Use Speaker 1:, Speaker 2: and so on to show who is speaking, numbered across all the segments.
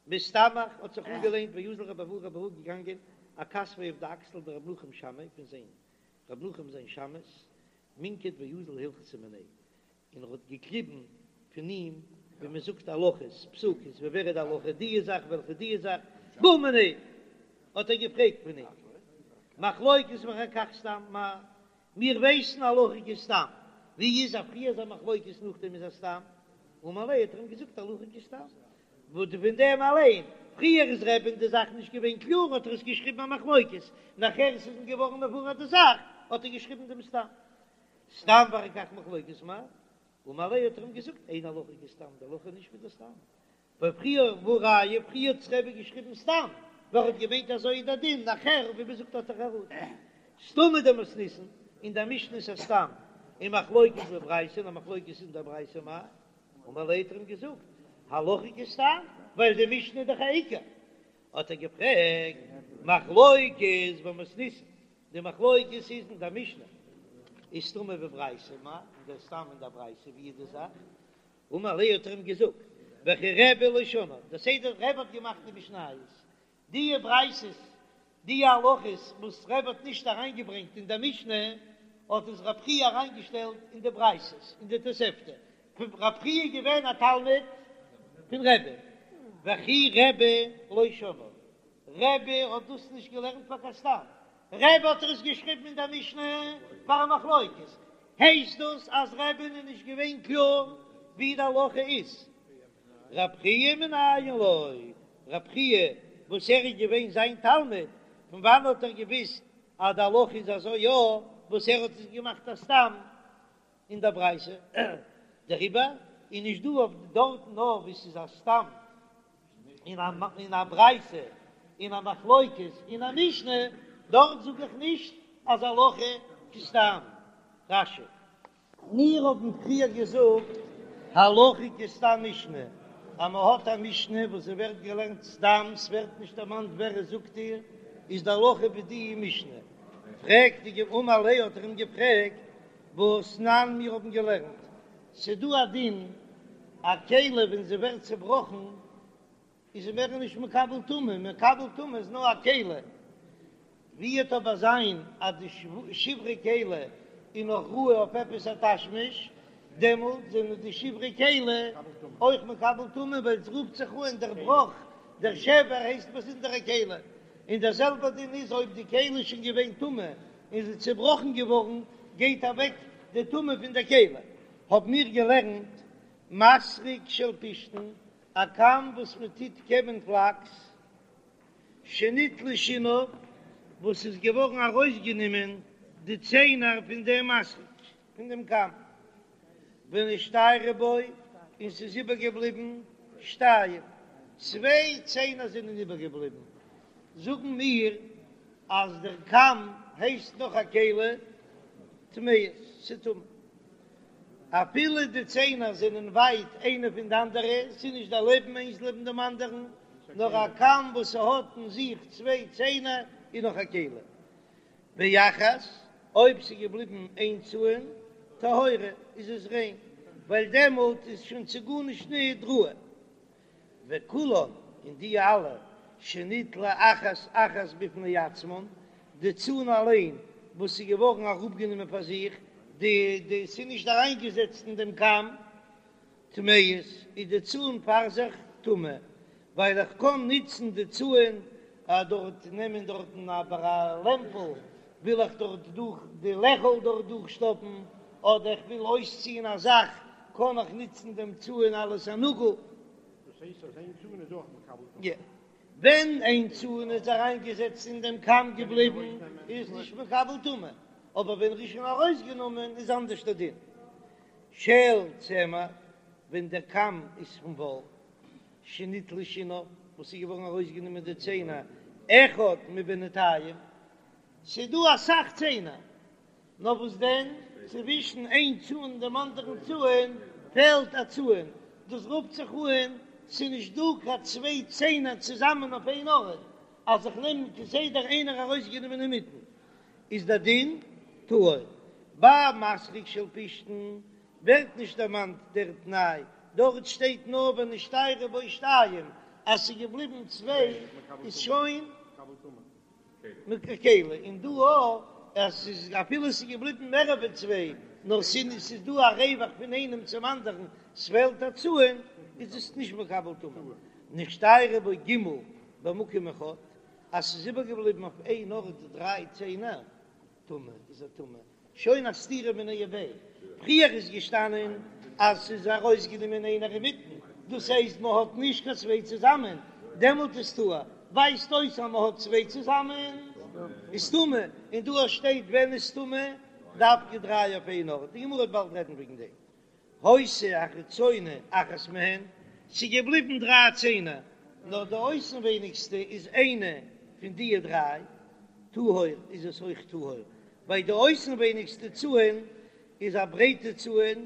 Speaker 1: מסתמך האט זיך אנגעלענט ואזל רבי אבהו רבי אבהו געגאנגען אכתפיה אויף די אקסל דרבי נחום שמעיה פון זיין רבי נחום זיין שמש מינקט ואזיל הלכתא מיניה און ער האט געקליבן פון אים ווי מען זאגט הלכות פסוקות ווי ווער איז די הלכה די זאך וועלכע די זאך בעא מיניה האט ער געפרעגט פון אים מחלוקת ואחר כך סתם מאי מיר ווייסן הלכה כסתם ווי איז אז פריער איז א מחלוקת נאכדעם איז א סתם אמר ליה האט ער אים געזאגט הלכה כסתם וואס פון דעם אליין פריער איז רבי'ן די זאך נישט געווען קלאר האט ער עס געשריבן א מחלוקת נאכער עס איז אים געווארן מבואר די זאך האט ער געשריבן דעם סתם סתם ואחר כך מחלוקת מאי אמר ליה האט ער אים געזאגט אין הלכה כסתם די הלכה איז נישט ווי די סתם ווייל פריער והא ראיה פריער האט רבי געשריבן סתם ווייל ער האט געמיינט אזוי איז דער דין נאכער ווי מען זאגט האט ער חרטה סתמא דמתניתין אין דער משנה איז א סתם און מחלוקת בברייתא און א מחלוקת אין דער ברייתא מאי אמר ליה האט ער אים געזאגט הלכה כסתם ווייל די משנה איז דאך א עיקר האט ער געפרעגט מחלוקת במתניתין די מחלוקת איז אין דער משנה איז סתמא בברייתא מאי און דער סתם אין דער ברייתא ווי איז די זאך אמר ליה האט ער אים געזאגט וכי רבי לא שנאה, דער סדר רבי האט געמאכט די משניות, די ברייתות, די הלכות וואס רבי האט נישט אריינגעברענגט אין דער משנה, האט עס רב חייא אריינגעשטעלט אין די ברייתות, אין די תוספתא, רב חייא איז געווען א תלמיד פון רבי, וכי רבי לא שנאה, רבי האט דאס נישט געלערנט פאר קיין סתם, רבי האט עס געשריבן אין דער משנה פאר א מחלוקת, הייסט דאס אז רבי'ן איז נישט געווען קלאר ווי די הלכה איז? רב חייא מנין לו, רב חייא וואס ער איז געווען זיין תלמיד, פון וואנען האט ער געוויסט אז די הלכה איז אזוי יא, וואס ער האט עס געמאכט א סתם אין דער ברייתא? דעריבער איז נישט דא אויף דארטן נאר וואו ס'איז א סתם אין א ברייתא אין א מחלוקת אין א משנה, דארט זאג איך נישט אז הלכה כסתם. רש"י. מיר האבן פריער געזאגט הלכה כסתם משנה, אז מען האט א משנה וואס זי ווערט געלערנט סתם, ס'ווערט נישט דערמאנט ווער עס זאגט איר, איז די הלכה ווי די משנה. פרעגט די גמ' אמר ליה האט ער אים געפרעגט, והתנן מיר האבן געלערנט ס'דא א דין א כלי ווען זי ווערט צעבראכן איז זי מער נישט מקבל טומאה, מקבל טומאה איז נאר א כלי, ווי וועט אבער זיין אז די שברי כלי איז נאך ראוי אויף עפעס א תשמיש, דעמאלט זענען די שברי כלי אויך מקבל טומאה ווייל עס רופט זיך אן דער בראך, דער שבר הייסט באזונדערע כלי, און דער זעלבער דין איז אויב די כלי איז שוין געווען טמא און זי איז צעבראכן געווארן גייט אוועק די טומאה פון דער כלי, האבן מיר געלערנט מסרק של פשתן, א קאם וואס מען טוט קעמען פלאקס, שניטלו שיניו, וואס איז געווארן ארויסגענומען די ציינער פון דעם מסרק, פון דעם קאם, ונשתיירו בו, און ס'איז איבערגעבליבן שתיים, צוויי ציינער זענען איבערגעבליבן, זאגן מיר אז דער קאם הייסט נאך א כלי טמאות, ס'טמא. אפילו די ציינער זענען ווייט איינע פון די אנדערע, ס'איז נישט דערלעבן איינס לעבן דעם אנדערן, נאר א קאם וואס ס'האט אין זיך צוויי ציינער איז נאך א כלי. ואחת, אויב ס'איז געבליבן איין צאן, טהורה, איז עס ריין, ווייל דעמאלט איז שוין צו גארנישט ניט ראוי. וכולן, און די אלע, שניטלו אחת אחת בפני עצמן, די צאן אליין וואס איז געווארן אראפגענומען פאר זיך, די די ס'איז נישט אריינגעזעצט אין דעם קאם, טמאות, איז די צאן פאר זיך טמא, ווייל איך קען נוצן די צאן דארט נעמען דארטן אבער א לעמפל וויל איך דארט דורך די לעכל דארט דורכשטאפן, אדער איך וויל אויסציען א זאך קען איך נוצן דעם צאן אלס א נאגל.
Speaker 2: דאס הייסט אז איין צאן איז אויך מקבל טומאה?
Speaker 1: יא. ווען איין צאן איז אריינגעזעצט אין דעם קאם געבליבן איז נישט מקבל טומאה, אבער ווען ר'איז שוין ארויסגענומען איז אנדערש דער דין. של צמר, ווען דער קאם איז פון וואל, שניטלו שיניו, וואס איז געווארן ארויסגענומען די ציינער, אחד מבינתיים, ס'איז דא אסאך ציינער, נאר וואס דען, צווישן איין צאן און דעם אנדערן צאן פעלט א צאן, דאס רופט זיך אן, ס'איז נישט דא קיין צוויי ציינער צוזאמען אויף איין ארט, אז איך נעם כסדר איינער ארויסגענומען אינמיטן, איז דער דין טהור. ביי מסרק של פשתן ווערט נישט דערמאנט דער תנאי, דארט שטייט נאר ונשתיירו בו שתיים. אז ס'איז געבליבן צוויי איז שוין כלי, און דא אויך אז ס'איז אפילו ס'איז געבליבן מער ווי צוויי נאר ס'איז דא א רווח פון איינעם צום אנדערן ס'פעלט א צאן איז עס נישט מקבל טומאה. נשתיירו בו ג' במקום אחד, אז ס'איז איבערגעבליבן אויף איין ארט דריי ציינער, טמא איז ער טמא, שוין א סתירה מיניה וביה, פריער איז געשטאנען אז ס'איז ארויסגענומען איינער אינמיטן, דאס הייסט מ'האט נישט קיין צוויי צוזאמען, דעמאלט איז טהור, ווייזט אויס אז מ'האט צוויי צוזאמען איז טמא, און דא שטייט ווען איז טמא, דווקא דריי אויף איין ארט, די גמרא וועט באלד רעדן וועגן דעם. היתה החיצונה אחת מהן, ס'איז געבליבן דריי ציינער, נאר די אויסנווייניגסטע איז איינע פון דיע דריי, טהור איז עס אויך טהור, ווייל די אויסנווייניגסטע צאן איז א ברייטע צאן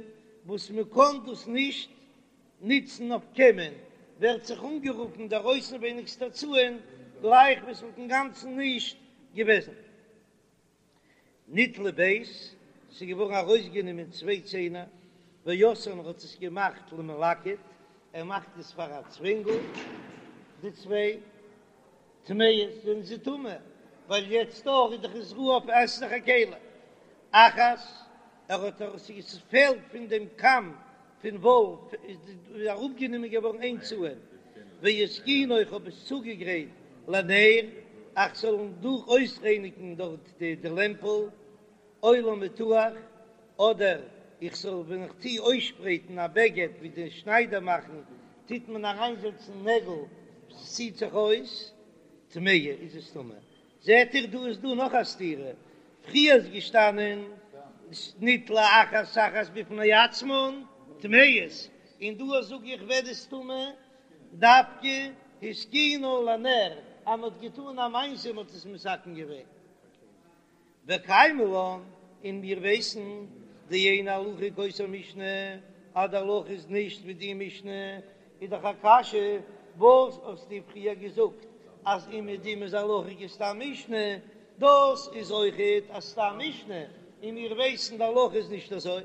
Speaker 1: וואס מען קען דאס נישט נוצן אויף קעמען, ווערט זיך אנגערופן דער אויסנווייניגסטער צאן גלייך ווי עס וואלט אינגאנצן נישט געוועזן. ניטלו ב', ס'איז געווארן ארויסגענומען צוויי ציינער, ועשאן האט עס געמאכט למלקט, ער מאכט עס פאר א צווענגל, די צוויי טמאות זענען זיי טמא, ווייל יעצט דאך איז דאך עס ראוי אויף עס איז דאך א כלי. אחת, ער האט עס פעלט פון דעם קאם פון וואל איז אראפגענומען געווארן איין צאן, והתקינה איך האב עס צוגעגרייט לנר, איך זאל דורך אויסרייניגן דארט די לעמפל, או למיתוח, אדער איך זאל ווען איך טו אויסשפרייטן א בגד ווי די שניידער מאכן, טוט מען אריינזעצן נעגל, ס'ציט זיך אויס, טמאה איז עס טמא. זעט איר דא איז דא נאך א סתירה, פריער איז געשטאנען ניטלה אחת אחת בפני עצמן טמאות, און דא זאג איך ווערט עס טמא דווקא התקינה לנר אז מען האט געטאן א מעשה מען האט עס מתקן געווען. וקיימא לן, און מיר ווייסן דאין הלכה כאותה משנה, אז די הלכה איז נישט ווי די משנה, איז דאך א קשיא, וואס האסטו פריער געזאגט אז אומעדום איז הלכה כסתם משנה, דאס איז אויכעט א סתם משנה, און מיר ווייסן די הלכה איז נישט אזוי.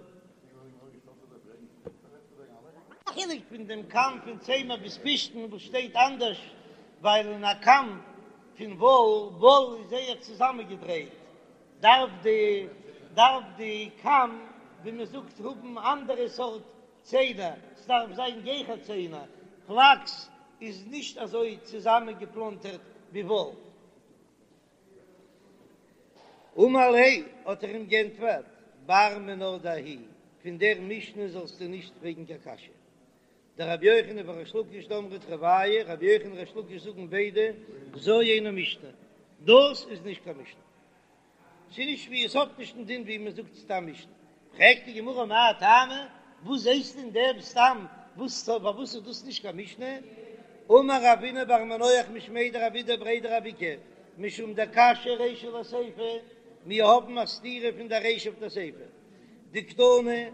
Speaker 1: א חילוק פון דעם קאם פון צמר ביז פשתן וואס שטייט אנדערש, ווייל אין א קאם פון וואל, וואל איז זייער צוזאמענגעדרייט, דארף די דארף די קאם ווי מען זאגט האבן אנדערע סארט ציינער, ס'דארף זיין גיכער ציינער, פלאקס איז נישט אזוי צוזאמענגעפלאנטערט ווי וואל. אמר ליה, האט ער אים גענטפערט, בר מינה דההיא, פון דער משנה זאלסטו נישט פרעגן קיין קשיא. דרבי יוחנן וריש לקיש דאמרי תרוייהו, רבי יוחנן און ריש לקיש זאגן ביידע, זו אינה משנה, דאס איז נישט קיין משנה. ס'איז נישט ווי עס האט נישט דעם דין ווי מען זאגט סתם משנה. פרעגט די גמרא מאי טעמא, וואס זעסטו אין דעם סתם, וואס פארוואס איז דאס נישט קיין משנה? אמר רבינא בר מנוח משמיה דרב אידי בריה דרב איקא, משום דקשיא רישא לסיפא, מיר האבן א סתירה פון דער רישא אויף דער סיפא, דקתני,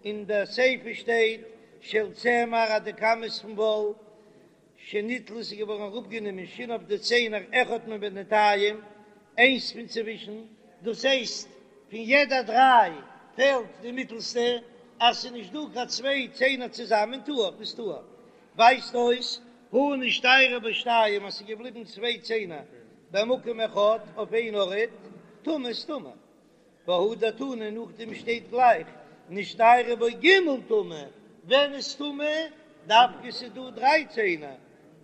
Speaker 1: אין דער סיפא שטייט של צמר אז די קאם איז פון וואל, שניטלו איז געווארן אראפגענומען שיניו די ציינער אחד מבינתים, איינס פון צווישן, דאס הייסט פון יעדע דריי פעלט די מיטלסטע, אז ס'איז נישט דא קיין צוויי ציינער צוזאמען טהור איז טהור, ווייזט אויס הא נשתיירו בו שתיים אז ס'איז געבליבן צוויי ציינער במקום אחד אויף איין ארט, טמא איז טמא. והדר תני נאכדעם שטייט גלייך נשתיירו בו ג' טמא, ווען איז טמא? דווקא ס'איז דא דריי ציינער,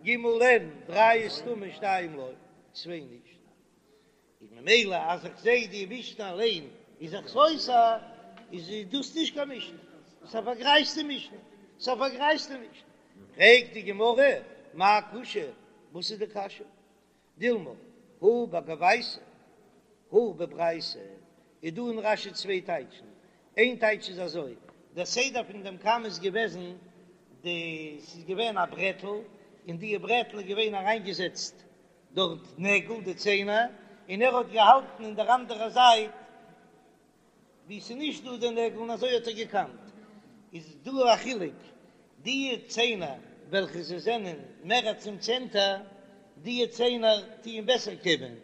Speaker 1: ג' אין, דריי איז טמא שתיים לא, צוויי נישט, איז ממילא אז איך זעה די משנה אליין איז זיך סותר, איז דאס נישט קיין משנה, ס'איז א פארגרייזטע משנה, ס'איז א פארגרייזטע משנה. פרעגט די גמרא, מאי קושיא, וואס איז די קשיא? דילמא, הא בגוייתא, הא בברייתא, איז דא אין רש"י צוויי טייטשן, איין טייטש איז אזוי, דער סדר פון דעם קאם איז געוועזן, די ס'איז געווען א ברעטל, אין די ברעטל איז געווען אריינגעזעצט דארט נעגל, די ציינער, און ער האט געהאלטן אין דער אנדערע זייט ווי ס'איז נישט דא די נעגל און אזוי האט ער געקאמט, איז דא א חילוק, די ציינער וועלכע זיי זענען מער צום צענטער, די ציינער טוען בעסער קעמען,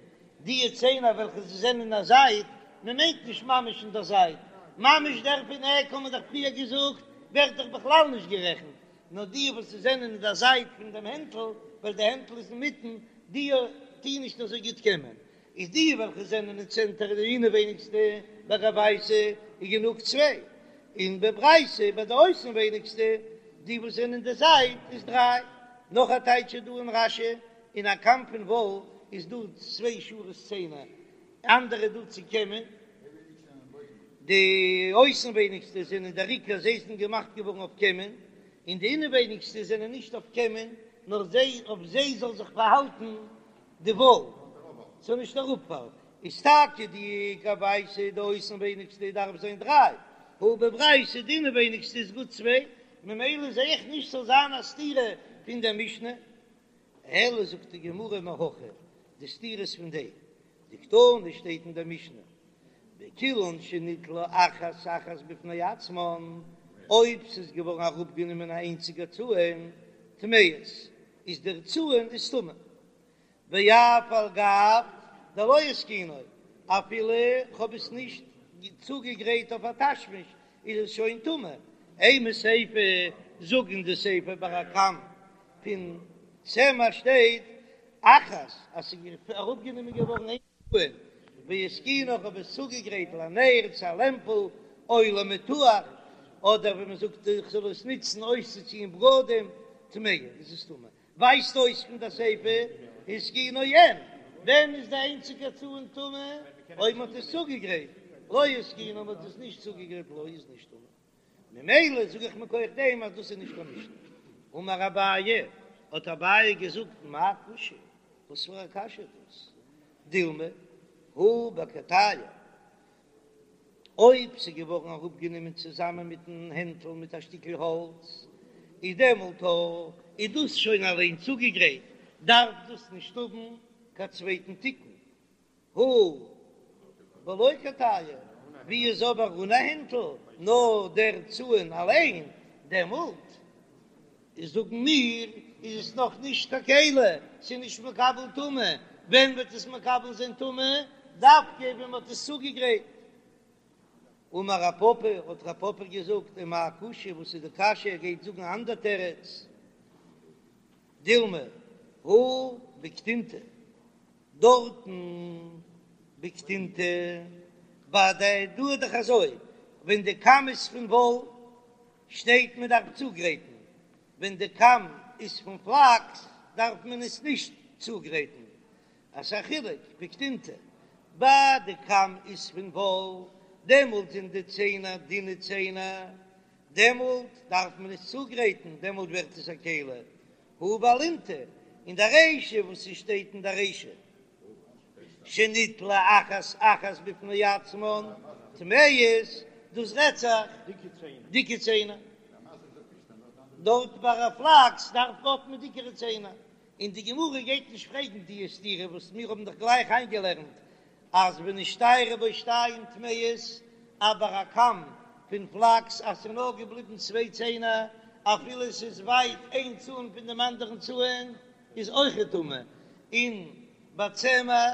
Speaker 1: די ציינער וועלכע זיי זענען אין א זייט, מען מיינט נישט ממש אין דער זייט, ממש דער פון עק האט מען דאך פריער געזאגט ווערט דאך בכלל נישט גערעכנט, נאר די וואס זענען אין דער זייט פון דעם הענטל, ווייל די הענטל איז אינמיטן, די טוען נישט אזוי גוט קעמען, איז די וועלכע זענען אין צענטער די אינעווייניגסטע ביי גוייתא איז גענוג צוויי, און בברייתא ביי די אויסנווייניגסטע די וואס זענען אין די זייט איז דריי. נאך א טייטש איז דא אין רש"י, אין א קאם פון וואל איז דא צוויי שורות ציינער, אנדערע דא צו קעמען, די אויסנווייניגסטע זענען דער עיקר זיי זענען געמאכט געווארן אויף קעמען, און די אינעווייניגסטע זענען נישט אויף קעמען, נאר זיי אויף זיי זאל זיך פארהאלטן די וואל, ס'זאל נישט אראפפאלן, איז טאקע די גוייתא די אויסנווייניגסטע דארף זיין דריי, הא בברייתא די אינעווייניגסטע איז גוט צוויי, ממילא זע איך נישט ס'זאל זיין א סתירה פון דער משנה, אלא זאגט די גמרא מהכא, די סתירה איז פון דעם, דקתני שטייט אין דער משנה, בכולן שניטלו אחת אחת בפני עצמן, אויב ס'איז געווארן אראפגענומען א איינציגע צאן, טמאות, איז דער צאן איז טמא. ואף על גב דלא התקינו, אפילו כ'האב עס נישט צוגעגרייט אויף א תשמיש, איז עס שוין טמא. אימא סיפא, זאג אין די סיפא ביי א קאם פון צמר שטייט אחת אז ס'איז אראפגענומען געווארן איין צאן, והתקינו איך האב עס צוגעגרייט לנר צו א לעמפל או למיתוח, אדער ווי מ'זאגט איך זאל עס נוצן אויסצוציען בגדים, טמאה איז עס טמא. ווייזט אויס פון די סיפא התקינו אין, ווען איז די איינציגע צאן טמא? אויב מ'האט עס צוגעגרייט, לא התקינו מ'האט עס נישט צוגעגרייט לא איז נישט טמא. ממילא זאג איך מכח דעם אז דאס איז נישט קיין משנה. אמר אביי, האט אביי געזאגט מאי קושיא, וואס פאר א קשיא איז דאס? דילמא הא בקטייעי, אויב ס'איז געווארן אראפגענומען צוזאמען מיטן הענטל מיט א שטיקל האלץ, איז דעמאלט איז דאס שוין אליין צוגעגרייט, דארף דאס נישט האבן קיין צווייטן תיקון. הא בלא קטייעי, ווי איז אבער אן א הענטל, נאר דער צאן אליין, דעמאלט זאגן מיר איז עס נאך נישט קיין כלי, ס'איז נישט מקבל טומאה, ווען וועט עס מקבל זיין טומאה? דווקא ווען מ'האט עס צוגעגרייט. אמר רב פפא, האט רב פפא געזאגט, ומאי קושיא, וואס איז די קשיא, ער גייט זאגן א אנדער תירוץ, דילמא הא בקטינתא, דארטן בקטינתא, ביי די דא איז דאך אזוי, ווען די קאם איז פון וואל שטייט מען דארף צוגרייטן, ווען די קאם איז פון פלאקס דארף מען עס נישט צוגרייטן, אז ס'איז א חילוק בקטינתא, ביי די קאם איז פון וואל דעמאלט זענען די ציינער דינע ציינער, דעמאלט דארף מען עס צוגרייטן, דעמאלט ווערט עס א כלי, הא באלינטא, אין די רישא וואס ס'שטייט אין די רישא שניטלו אחת אחת בפני עצמן טמאות, דאס רעדט זיך דיקע ציינער, דארט ביי א פלאקס דארף האט מען דיקערע ציינער, און די גמרא גייט נישט פרעגן די סתירה וואס מיר האבן דאך גלייך איינגעלערנט אז ונשתיירו בו שתיים טמאות, אבער א קאם פון פלאקס אז ס'איז נאר געבליבן צוויי ציינער אפילו ס'איז ווייט איין צאן פון דעם אנדערן צאן איז אויכעט טמא, און ביי צמר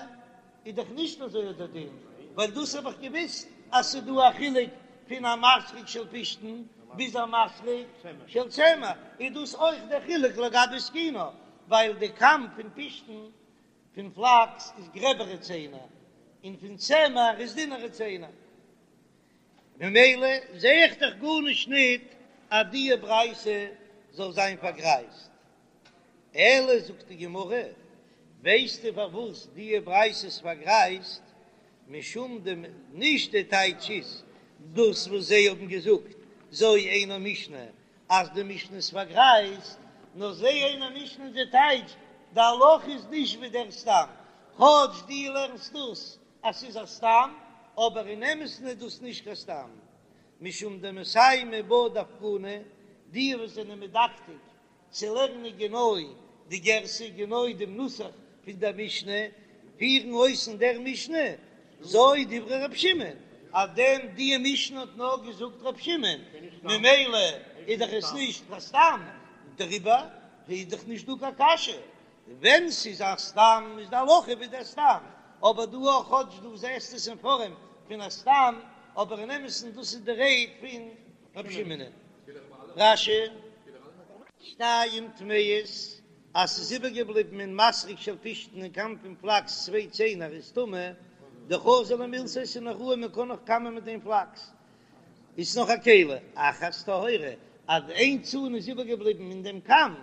Speaker 1: איז דאך נישט אזוי דער דין, ווייל דאס האב איך געוויסט אז ס'איז דא א חילוק פון א מסרק של פשתן ביז א מסרק של צמר, איז דאס אויך דער חילוק לגבי התקינו, ווייל די קאם פון פשתן פון פלאקס איז גרעבערע ציינער און פון צמר איז דינערע ציינער, ממילא זע איך דאך גארנישט ניט אז די ברייתא זאל זיין פארגרייזט. אלא זאגט די גמרא, ווייסטו פארוואס די ברייתא איז פארגרייזט? משום דעם נישט די טייטש איז דאס וואס זיי האבן געזאגט זו אינה משנה אז די משנה איז פארגרייזט, נאר זו אינה משנה איז די טייטש, די הלכה איז נישט ווי דער סתם, כאטש דו לערנסט דאס אז ס'איז א סתם, אבער אין אמת'ן איז דאס נישט קיין סתם, משום דמסיימי בה דווקני, די וואס זענען מדקדק צו לערנען גענוי די גירסא, גענוי דעם נוסח פון דער משנה, פירן אויס אין דער משנה, זו דברי ר' שמעון, אז דעם די משנה האט נאר געזאגט ר' שמעון, ממילא איז דאך עס נישט קיין סתם, דעריבער איז דאך נישט דא קיין קשיא, ווען ס'איז א סתם איז די הלכה ווי דער סתם, אבער דא אויך כאטש דו זעסט עס אין פארעם פון א סתם, אבער אין אמת'ן דאס איז די רייד פון ר' שמעון. רש"י. שתיים טמאות, אז ס'איז איבערגעבליבן אין מסרק של פשתן אין קאם פון פלאקס צוויי ציינער איז טמא, דחזי למילתא ס'איז נאך ראוי מען קען נאך קאמען מיט דעם פלאקס איז נאך א כלי, אחת טהורה, אז איין צאן איז איבערגעבליבן אין דעם קאם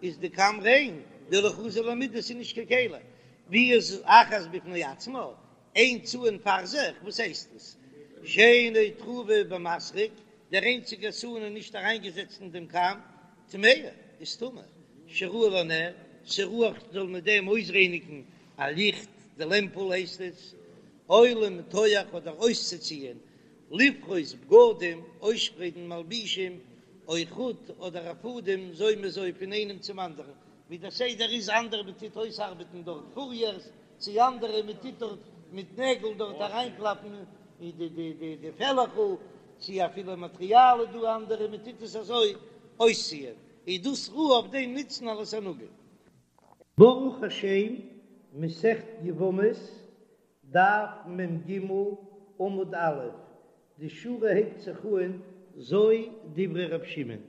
Speaker 1: איז די קאם ריין, דלא חזי למידי ס'איז נישט קיין כלי, ווי איז אחת בפני עצמה, איין צאן פאר זיך, וואס הייסט עס? שאינה טרופה במסרק, דער איינציגער צאן איז נישט אריינגעזעצט אין דעם קאם, טמאה, איז טמא, שראוי לנר, ס'ראוי זאל מיט דעם אויסרייניגן א ליכט, די לעמפל הייסט עס, או למתוח אדער אויסצוציען, לפרוס בגדים, אויסשפרייטן מלבישים, או חוט אדער א פאדעם, זו מזו פון איינעם צום אנדערן, ווי דער סדר איז אנדערע מען טוט אויסארבעטן דארט פוריערס, צו אנדערע מען טוט דארט מיט נעגל דארט אריינקלאפן די די די די פעלעכל, צו אפילו מאטריאל איז דא אנדערע מען טוט עס אזוי אויסציען, איז דאס ראוי אויף דעם נוצן אלס א נאגל. ברוך השם, מסכת יבמות, דף מ"ג, עמוד א', די שורה הייבט זיך אהן זו דברי ר' שמעון.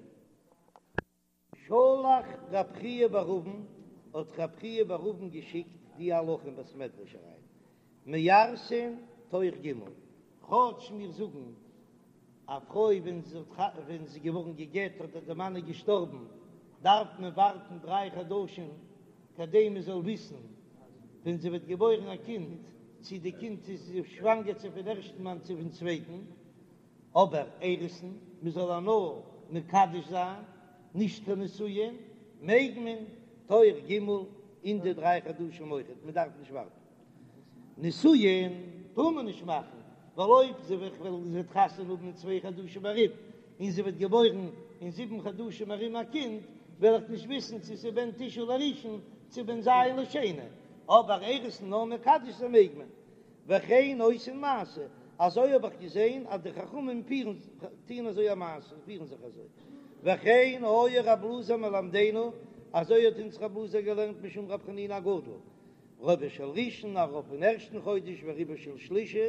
Speaker 1: שלח רב חייא בר אבין, האט רב חייא בר אבין געשיקט די הלכה אין בית מדרש אריין, מארסין תוך ג', כאטש מיר זאגן א פרוי ווען זי האט ווען זי איז געווארן גע'גט אדער די מאן איז געשטארבן דארף מען ווארטן דריי חדשים כדי מען זאל וויסן ווען זי וועט געבוירן א קינד צי די קינד איז שוואנגער צו פון ערשטן מאן צו פון צווייטן, אבער אירוסין, מען זאל איר נאר מקדש זיין, נישט קיין נישואין, מעג מען תוך ג' אין די דריי חדשים אויכעט, מען דארף נישט ווארטן. נישואין טאר מען נישט מאכן, ווייל אויב זי וועט זי וועט חתונה האבן אין צוויי חדשים ארום, און זי וועט געבוירן אין זיבן חדשים ארום א קינד, וועל איך נישט וויסן צו ס'איז בן תשעה לראשון צו בן ז' לשני, אבער אירוסין נאר מקדש זיין מעג מען. וכן עושין מעשה, אזוי האב איך געזען אז די חכמים פירן טוען אזוי א מעשה, פירן זיך אזוי, וכן היה רב אלעזר מלמדינו, אזוי האט אונז רב אלעזר געלערנט משום רב חנינא הגדול, רובו של ראשון, א רוב פון ערשטן חודש, ורובו של שלישי,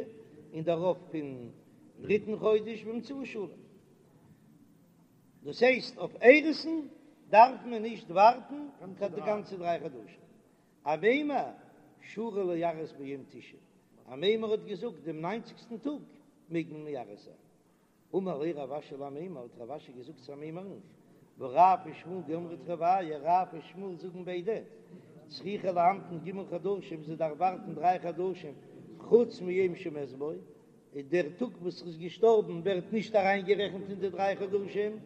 Speaker 1: און דער רוב פון דריטן חודש, ואמצעי שלם. דאס הייסט אויף אירוסין דארף מען נישט ווארטן קיין די גאנצע דריי חדשים. אמימר שרי לארס ביום תשעים, אמימר האט געזאגט דעם ניינציגסטן טאג מעג מען מארס זיין. אמר ליה רב אשי לאמימר, האט רב אשי געזאגט צו אמימר'ן, והא רב ושמואל דאמרי תרוייהו, רב און שמואל זאגן ביידע, צריכה להמתין ג' חדשים, זי דארף ווארטן דריי חדשים, חוץ מיום שמת בו, און דער טאג וואס ער איז געשטארבן ווערט נישט אריינגערעכנט אין די דריי חדשים,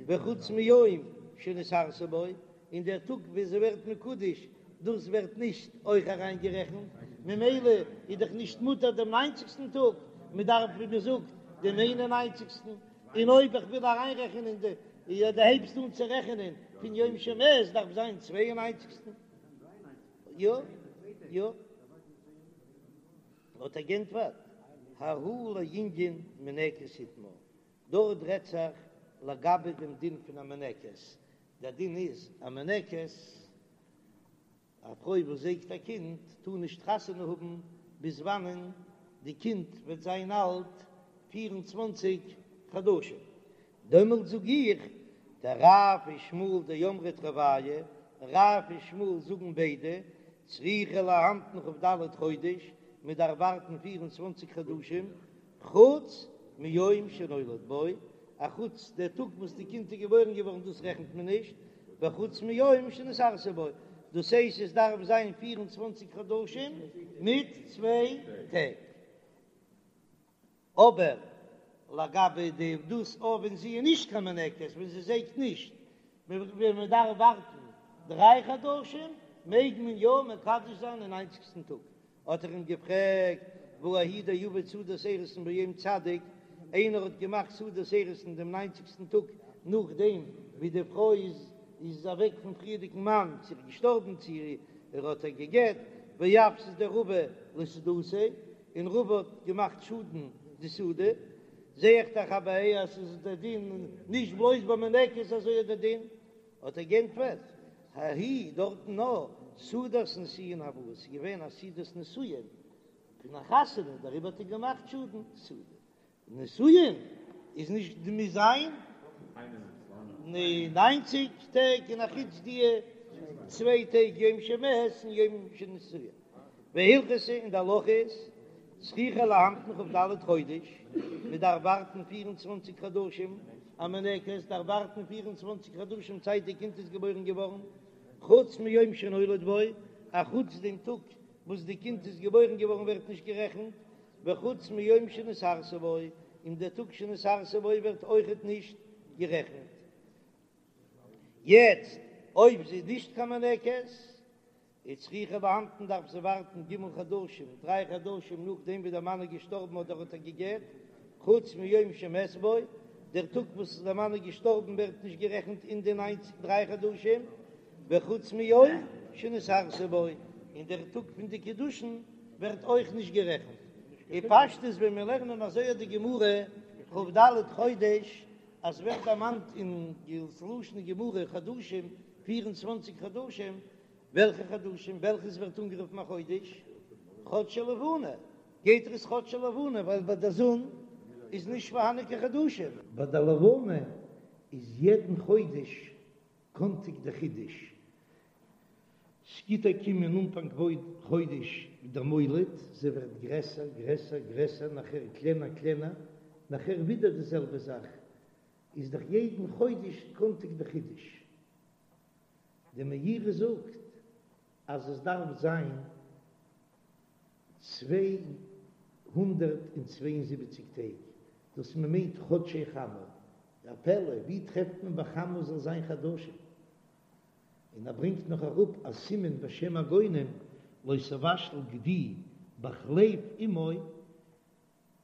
Speaker 1: וחוץ מיום שנתארסה בו, און דער טאג ווען זי ווערט מקודש, דאס ווערט נישט אויך אריינגערעכנט, ממילא איז דאך נישט מותר דעם ניינציגסטן טאג, מען דארף ווי מען זאגט דעם איין און ניינציגסטן, און אויב איך וויל אריינרעכענען די, יא דו הייבסט אן צו רעכענען פון יום שמת דארף זיין צוויי און ניינציגסטן, יא יא. האט ער גענטפערט, ההוא לענין מניקת איתמר, דארט רעדט זיך לגבי דעם דין פון א מניקת, דער דין איז א מניקת, א פרוי וואס זייגט א קינד טאר נישט חתונה האבן ביז וואנען די קינד וועט זיין אלט 24 חדשים, דעמאלט זאג איך, דרב ושמואל דאמרי תרוייהו, רב און שמואל זאגן ביידע, צריכה להמתין כ"ד חודש, מען דארף ווארטן 24 חדשים, חוץ מיום שנולד בו, אחוץ דער טאג וואס די קינד איז געבוירן געווארן דאס רעכנט מען נישט, וחוץ מיום שנתארסה בו, דאס הייסט עס דארף זיין 24 חדשים מיט צוויי טעג. אבער לגבי די דאס אויב ווען זי איז נישט קיין מניקת, ווען זי זייגט נישט, ווען מען דארף ווארטן דריי חדשים, מעג מען יא מקדש זיין אין ניינציגסטן טאג. האט ער אים געפרעגט, והא ההוא דעבד סעודת אירוסין ביום צדיק, איינער האט געמאכט סעודת אירוסין דעם ניינציגסטן טאג נאכדעם ווי די פרוי איז איז אוועק פון פריערדיגן מאן, צו ער איז געשטארבן צו ער האט איר גע'גט, ואפסדיה רבא לסעודתיה, און רבא האט געמאכט שאדן די סעודה, זע איך דאך אבער אז ס'איז דער דין נישט בלויז ביי מניקת אזוי איז דער דין, האט ער גענטפערט, ההיא דארטן נאר סעודת נישואין הואי, ס'איז געווען א סעודת נישואין פון א חתונה, דעריבער האט ער געמאכט שאדן סעודה. נישואין איז נישט די מוז זיין. ניינציג טעג און אחוץ די צוויי טעג יום שמת און יום שנשואה. והלכתא און די הלכה איז צריכה להמתין כ"ד חודש, מען דארף ווארטן פיר און צוואנציג חדשים, א מניקת דארף ווארטן פיר און צוואנציג חדשים צייט די קינד איז געבוירן געווארן, חוץ מיום שנולד בו, אחוץ דעם טאג וואס די קינד איז געבוירן געווארן ווערט נישט גערעכנט, וחוץ מיום שנתארסה בו, און דער טאג שנתארסה בו ווערט אויכעט נישט גערעכנט. יעצט אויב זי איז נישט קיין מניקת, איז צריכה להמתין דארף זי ווארטן ג' חדשים, דריי חדשים נאכדעם ווי דער מאן איז געשטארבן אדער האט איר גע'גט, חוץ מיום שמת בו, דער טאג וואס דער מאן איז געשטארבן ווערט נישט גערעכנט אין די ניינציג דריי חדשים, וחוץ מיום שנתארסה בו, און דער טאג פון די קידושין ווערט אויך נישט גערעכנט. אין פשטות ווען מיר לערנען אזוי אט די גמרא כ"ד חודש, אז ווערט דערמאנט אין לשון גמרא חדשים, פיר און צוואנציג חדשים, וועלכע חדשים? וועלכעס ווערט אנגערופן א חודש? חדשי לבנה. גייט ער עס חדשי לבנה ווייל ביי די זון איז נישט פארהאנען קיין חדשים. ביי די לבנה איז יעדן חודש קאנטיג די חידוש. ס'גיט א קום אין אנפאנג חודש דער מולד, זי ווערט גרעסער גרעסער גרעסער נאכער קלענער קלענער, נאכער ווידער די זעלבע זאך, איז דאך יעדן חודש קאנטיג די חידוש. די מאירי זאגט אז עס דארף זיין 272 טעג, דאס מען מיינט חדשי חמה, א פלא, ווי טרעפט מען ביי חמה זאל זיין חדשים? און ער ברענגט נאך אראפ א סימן בשם הגאונים לא תבשל גדי בחלב אמו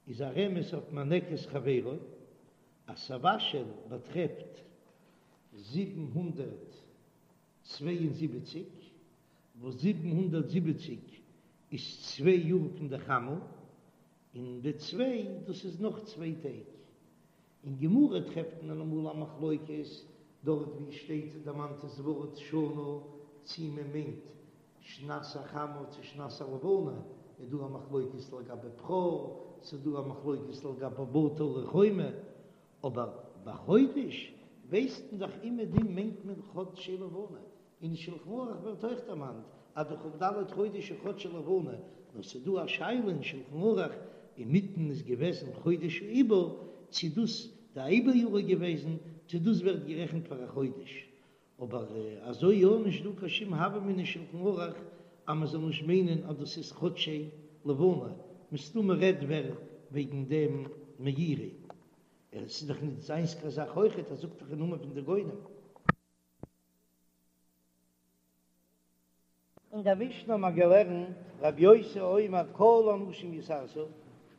Speaker 1: איז א רמז אויף מינקת חברו, אז תבשל באטרעפט 772, וואס 770 איז צוויי יאר פון די חמה, און די צוויי דאס איז נאך צוויי טעג. אין גמרא טרעפט מען אמאל א מחלוקת דארט ווי שטייט דערמאנט דאס ווארט שנה צי מען מיינט שנת החמה צו שנת הלבנה, איז דא א מחלוקת לגבי בכור, ס'איז דא א מחלוקת לגבי בתי ערי חומה, אבער ביי חודש ווייסט מען דאך אומעדום מיינט מען חדשי לבנה, אין שלחן ערוך ווערט אויך דערמאנט אז די כ"ד חודש איז חדשי לבנה, נאר ס'איז דא א שאלה אין שלחן ערוך, אינמיטן איז געוועזן חודש העיבור, צו דאס די עיבור יאר איז געוועזן, צו דאס ווערט גערעכנט פאר א חודש, אבער אזוי יא נישט דא קיין שום הוה אמינא אין שלחן ערוך אז מען זאל נישט מיינען אז דאס איז חדשי לבנה, מסתמא רעדט ווער וועגן דעם מאירי, עס איז דאך נישט זיינס קיין זאך אויכעט, ער זאגט דאך אין נאמען פון די גאונים. אין דער משנה האט מען געלערנט רבי יוסי אומר כל הנשים יתארסו,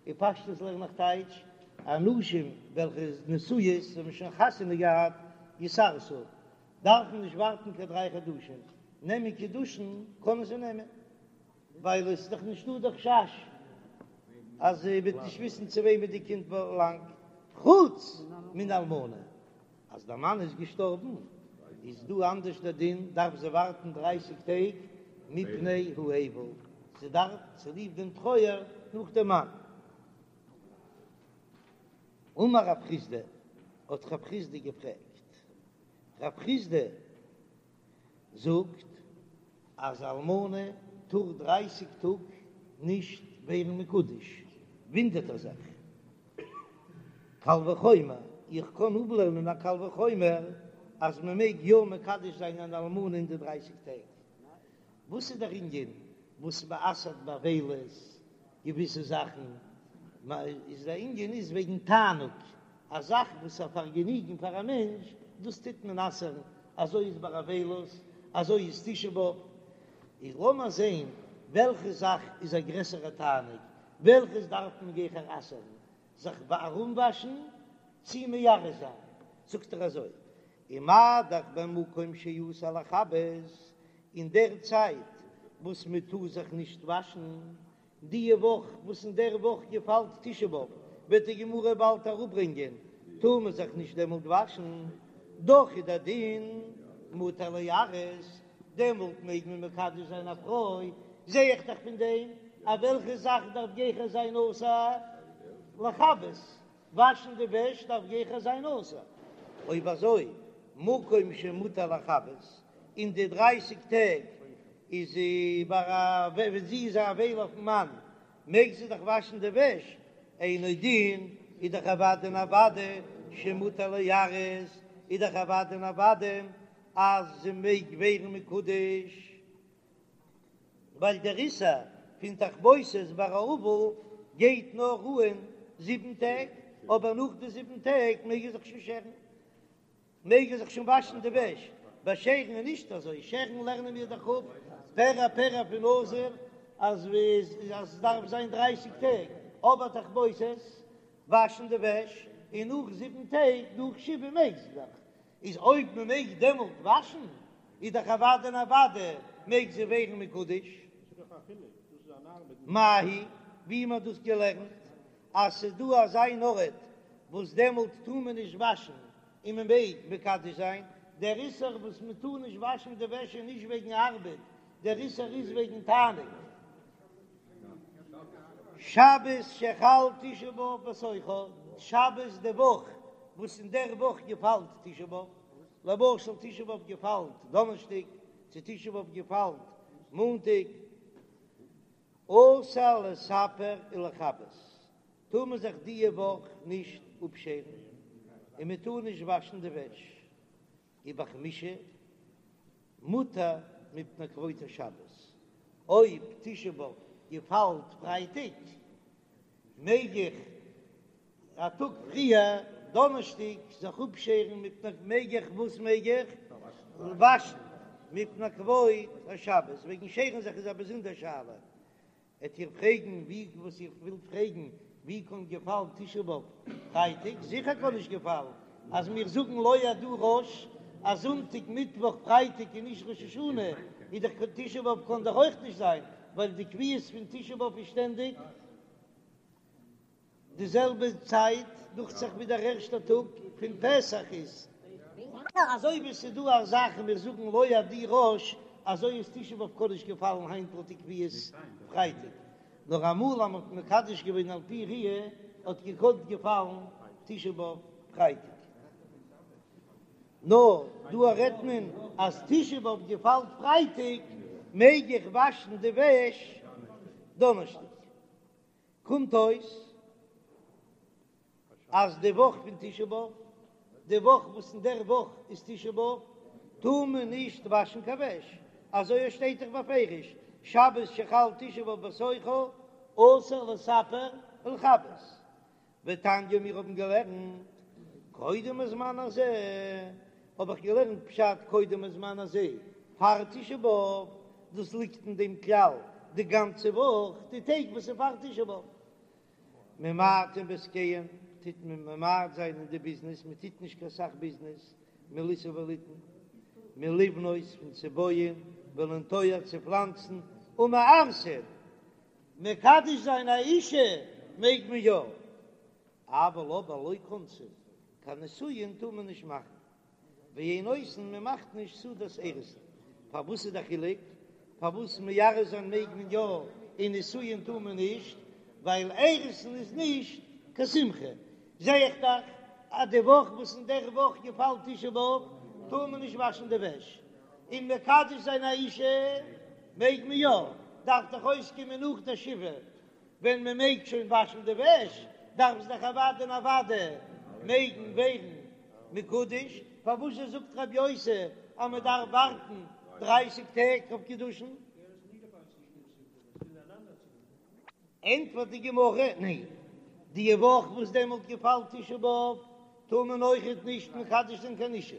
Speaker 1: אין פשטות לערן איך טייטש, הנשים וועלכע איז נשואות האבן שוין חתונה געהאט יתארסו, דארפן נישט ווארטן קיין דריי חדשים, נעמען קידושין קענען זיי נעמען, ווייל עס איז דאך נישטא דער חשש אז זי וועט נישט וויסן צו וועמען די קינד באלאנגט, חוץ מן אלמנה, אז דער מאן איז געשטארבן איז דא אנדערש דער דין, דארף זי ווארטן דרייסיג טעג מפני האבל, זי דארף צוליב דעם טרויער נאך דעם מאן. אמר רב חסדא, האט רב חסדא געפרעגט, רב חסדא זאגט אז אלמנה טאר דרייסיג טאג נישט ווערן מקודש, וואונדערט ער זיך, קל וחומר, איך קען אפלערנען א קל וחומר אז מען מעג יא מקדש זיין אן אלמנה אין די דרייסיג טעג. וואס איז דער ענין וואס מען אסר'ט באבילות געוויסע זאכן? איז דער ענין איז וועגן תענוג, א זאך וואס איז א פארגעניגן פאר א מענטש, דאס טוט מען אסר'ן, אזוי איז ביי אבילות, אזוי איז תשעה באב. איז לאמיר זען וועלכע זאך איז א גרעסערע תענוג, וועלכעס דארף מען גיכער אסר'ן, זיך ארומוואשן צי מארס זיין? זאגט ער אזוי, ומה דאך במקום שאסור לכבס, אין דער צייט וואס מען טאר זיך נישט וואשן, די וואך וואס אין דער וואך געפאלט תשעה באב, וועט די גמרא באלד אראפברענגען, טאר מען זיך נישט דעמאלט וואשן, דאך איז דער דין מותר ליארס, דעמאלט מעג מען מקדש זיין א פרוי, זע איך דאך פון דעם אז וועלכע זאך דארף גיכער זיין אסור לכבס, וואשן די וועש דארף גיכער זיין אסור, אויב אזוי. מקום שמותר לכבס, אין די דרייסיג טעג איז זי ביי א ווען זי איז א אבילה אויפן מאן מעג זי דאך וואשן די וועש, אינו דין איז דאך אוודאי און אוודאי שמותר ליארס, איז דאך אוודאי און אוודאי אז זי מעג ווערן מקודש. ווייל דער איסור פון תכבוסת ביי א אבל גייט נאר אן זיבן טעג, אבער נאך די זיבן טעג מעג ער זיך שוין שערן, מעג ער זיך שוין וואשן די וועש, ביי שערן איז נישט אזוי, שערן לערנען מיר דאך אפ פרע פרע פון נזיר אז עס דארף זיין דרייסיג טעג, אבער תכבוסת, וואשן די וועש, און נאך זיבן טעג, נאך שבעה מעג זי דאך, איז אויב מען מעג דעמאלט וואשן, איז דאך אוודאי און אוודאי מעג זי ווערן מקודש. מאי היא, ווי מען האט דאס געלערנט, אז ס'איז דא אזא אן ארט וואס דעמאלט טאר מען נישט וואשן און מען מעג מקדש זיין, דער איסור וואס מען טאר נישט וואשן די וועש איז נישט וועגן ארבעט, דער איסור איז וועגן תענוג. שבת שחל תשעה באב בתוכה, שבת די וואך וואס אין דער וואך געפאלט תשעה באב, למשל תשעה באב געפאלט דאנערשטאג, צו תשעה באב געפאלט מאנטאג, אסור לספר ולכבס, טאר מען זיך דיע וואך נישט אפשערן, און מען טאר נישט וואשן די וועש. ובחמישי מותר מפני כבוד השבת, אויב תשעה באב געפאלט פרייטאג מעג איך א טאג פריער דאנערשטאג זיך אפשערן מפני מעג איך וואס מעג איך וואשן מפני כבוד השבת, וועגן שערן זיך איז א באזונדער שאלה, וועט איר פרעגן ווי וואס איר ווילט פרעגן, ווי קען געפאלן תשעה באב פרייטאג? זיכער קען נישט געפאלן, אז מיר זאגן לא אד"ו ראש אז זונטאג מיטוואך פרייטאג איז נישט ראש השנה, איז דאך תשעה באב קען דאך אויך נישט זיין, ווייל די קביעות פון תשעה באב איז שטענדיג. די זעלבע צייט דוכט זיך ווי דער ערשטער טאג פון פסח איז. אזוי ווי ס'איז דא א זאך און מיר זאגן לא אד"ו ראש, אזוי איז תשעה באב קען נישט געפאלן היינט לויט די קביעות פרייטאג, נאר אמאל אז מ'האט מקדש געווען על פי ראיה האט געקאנט געפאלן תשעה באב פרייטאג. נאר דא רעדט מען אז תשעה באב געפאלט פרייטאג מעג איך וואשן די וועש דאנערשטאג. קומט אויס אז די וואך פון תשעה באב, די וואך וואס אין דער וואך איז תשעה באב, טאר מען נישט וואשן קיין וועש, אזוי עס שטייט דאך בפירוש, שבת שחל תשעה באב בתוכה אסור לספר ולכבס. ותניא מיר האבן געלערנט קודם הזמן הזה, האב איך געלערנט פשט קודם הזמן הזה פאר תשעה באב, דאס ליגט אין דעם כלל די גאנצע וואך, די טעג וואס איז פאר תשעה באב. ממעטין בעסקיהן, טוט מען ממעט זיין אין די ביזנעס, מען טוט נישט קיין סך ביזנעס, מלישא וליתן, מלבנות פון צו בויען, ולנטוע צו פלאנצן, ומארסין, מקדש זיין א אישה מעג מען יא, אבל אבער לא כונסין, קיין נישואין טאר מען נישט מאכן, ואין עושין מען מאכט נישט סעודת אירוסין, פארוואס איז די חילוק? פארוואס מארס זיין מעג מען יא און נישואין טאר מען נישט? ווייל אירוסין איז נישט קיין שמחה, זע איך דאך אז די וואך וואס אין דער וואך געפאלט תשעה באב טאר מען נישט וואשן די וועש, און מקדש זיין א אישה מעג מען יא, דארף דאך אויסקומען נאך די שבעה ווען מען מעג שוין וואשן די וועש, דארף זי דאך אוודאי און אוודאי מעגן ווערן מקודש, פארוואס זשע זאגט רבי יוסי אז מען דארף ווארטן דרייסיג טעג אויף קידושין? ענטפערט די גמרא, ניין, די וואך וואס דעמאלט געפאלט תשעה באב טאר מען אויכעט נישט מקדש זיין קיין אישה,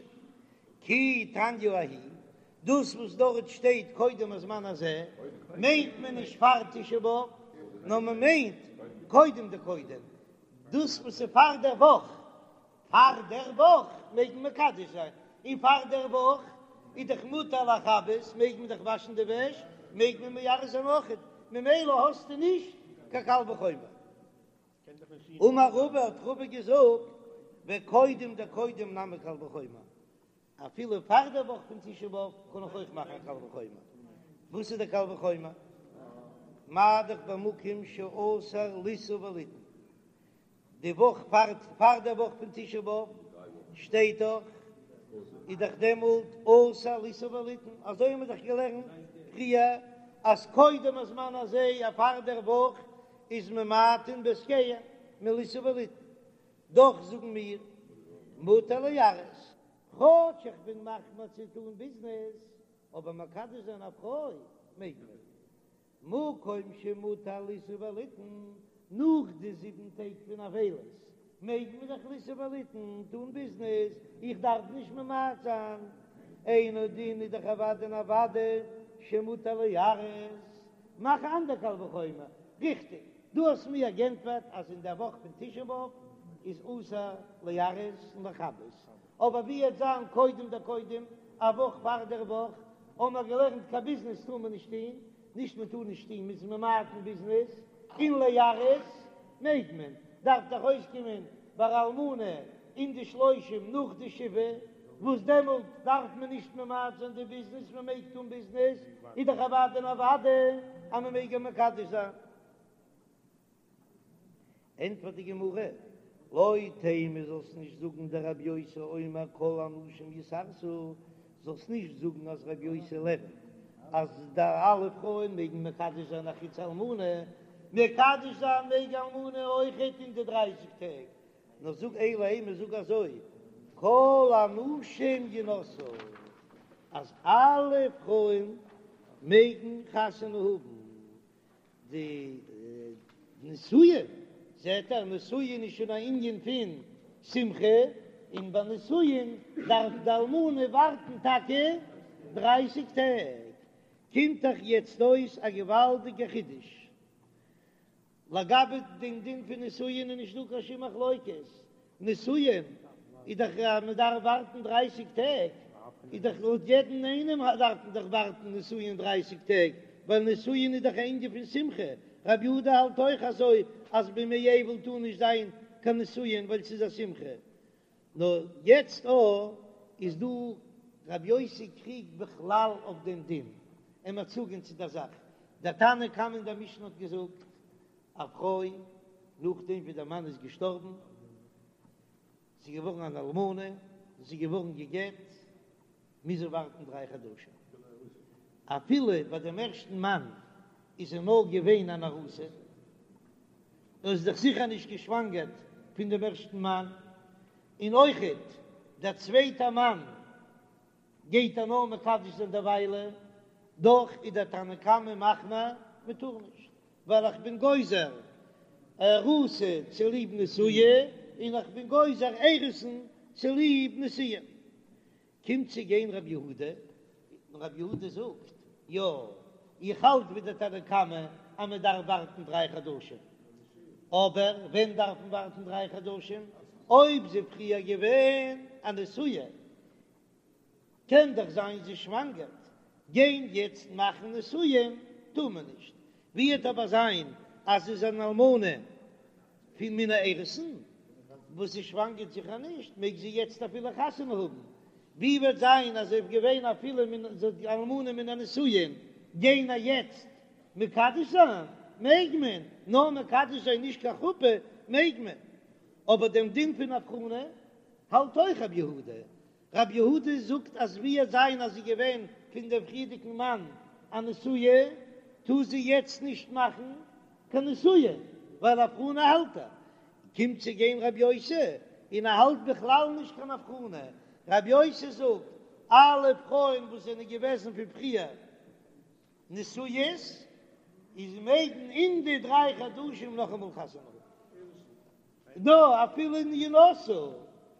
Speaker 1: כי תניא ההיא, דאס וואס דארט שטייט קודם הזמן הזה מיינט מען נישט פאר תשעה באב, נאר מען מיינט קודם דקודם, דאס וואס איז פאר דער וואך, פאר דער וואך מעג מען מקדש זיין, און פאר דער וואך איז דאך מותר לכבס, מעג מען דאך וואשן די וועש, מעג מען מארס זיין אויכעט, ממילא האסטו נישט קיין קל וחומר. אמר רבא האט רבא געזאגט, וקודם דקודם נמי קל וחומר, אפילו פאר דער וואך פון תשעה באב קען איך אויך מאכן א קל וחומר. וואס איז דער קל וחומר? מה דאך במקום שאסור לישא וליתן, די וואך פאר פאר דער וואך פון תשעה באב שטייט דאך. איז דאך דעמאלט אסור לישא וליתן, אזוי האבן מיר דאך געלערנט פריער אז קודם הזמן הזה א פאר דער וואך איז ממעטין בעסקיהם מלישא וליתן, דאך זאגן מיר מותר לארס, כאטש איך בין מחמיר צו טון ביזנעס, אבער מקדש זיין א פרוי מעג מען. מקום שמותר לישא וליתן, נאך די זיבן טעג פון אבילות מעג מען דאך לישא וליתן, טון ביזנעס, איך דארף נישט ממעט זיין, אינו דין איז דאך אוודאי און אוודאי שמותר לארס, מאך א אנדער קל וחומר, ריכטיג, דו האסט מיר גענטפערט אז אין דער וואך פון תשעה באב איז אסור לארס און לכבס, אבער ווי וועט זיין קודם דקודם, א וואך פאר דער וואך, האבן מיר געלערנט קיין ביזנעס טאר מען נישט טון, נישט מען טאר נישט טון מ'איז ממעט אין ביזנעס, און לארס מעג מען, דארף דאך אויסקומען ביי אלמנה אין די שלושים נאך די שבעה, וואס דעמאלט דארף מען נישט ממעט זיין די ביזנעס, מען מעג טון ביזנעס, איז דאך אוודאי און אוודאי אז מען מעג איר מקדש זיין. ענטפערט די גמרא, לא תימא זאלסט נישט זאגן דרבי יוסי אומר כל הנשים יתארסו, זאלסט נישט זאגן אז רבי יוסי לערנט אז די אלע פרויען מעגן מקדש זיין אחוץ אלמנה, מקדש זיין מעג אלמנה אויכעט אין די דרייסיג טעג, נאר זאג אלא אימא זאג אזוי כל הנשים ינשאו אז אלע פרויען מעגן חתונה האבן. די נישואין, זעט ער, נישואין איז שוין א ענין פון שמחה, און ביי נישואין דארף די אלמנה ווארטן טאקע דרייסיג טעג. קומט דאך יעצט אויס א געוואלדיגע חידוש. לגבי דעם דין פון נישואין איז נישט דא קיין שום מחלוקת, נישואין איז דאך אז מען דארף ווארטן דרייסיג טעג, איז דאך לויט יעדן איינעם דארף מען דאך ווארטן נישואין דרייסיג טעג, ווייל נישואין איז דאך א ענין פון שמחה, רבי יהודה האלט אויך אזוי אז בימי אבל טאר נישט זיין קיין נישואין ווייל ס'איז א שמחה. נאר יעצט אויך איז דא רבי יוסי קריגט בכלל אויף דעם דין, און מיר צוגיין צו דער זאך, דער תנא קמא אין דער משנה האט געזאגט, א פרוי נאכדעם ווי דער מאן איז געשטארבן, זי איז געווארן אן אלמנה, זי איז געווארן גע'גט, מוז זי ווארטן דריי חדשים, אפילו ביי דעם ערשטן מאן איז זי נאר געווען אן ארוסה, זי איז דאך זיכער נישט געשוואנגערט פון דעם ערשטן מאן, און אויכעט דער צווייטער מאן גייט איר נאר מקדש זיין דערוויילע, דאך איז דער תנא קמא מחמיר, מען טאר נישט, ווייל איך בין גוזר ארוסה צוליב נשואה, און איך בין גוזר אירוסין צוליב נישואין. קומט צו גיין רבי יהודה, און רבי יהודה זאגט, יא, איך האלט ווי דער תנא קמא אז מען דארף ווארטן דריי חדשים, אבער ווען דארף מען ווארטן דריי חדשים? אויב זי פריער געווען א נשואה, קען דאך זיין זי שוואנגערט, גיין יעצט מאכן נישואין טאר מען נישט, ווי וועט אבער זיין אז זי איז אן אלמנה פון מן האירוסין וואס זי שוואנגערט זיכער נישט, מעג זי יעצט אפילו חתונה האבן, ווי וועט זיין אז זי איז געווען אפילו מן אלמנה מן הנישואין, גיין איר יעצט מקדש זיין מעג מען, נאר מקדש זיין נישט קיין חופה מעג מען, אבער דעם דין פון הבחנה האלט אויך רבי יהודה, רבי יהודה זאגט אז ווי וועט זיין אז זי געווען פון דעם פריערדיגן מאן א נשואה, טאר זי יעצט נישט מאכן קיין נישואין, ווייל הבחנה האלט ער. קומט צו גיין רבי יוסי און ער האלט בכלל נישט קיין הבחנה, רבי יוסי זאגט אלע פרויען וואס זענען געוועזן פון פריער נשואות איז מעגן אין די דריי חדשים נאכאמאל חתונה האבן. נא, אפילו אין ינשאו,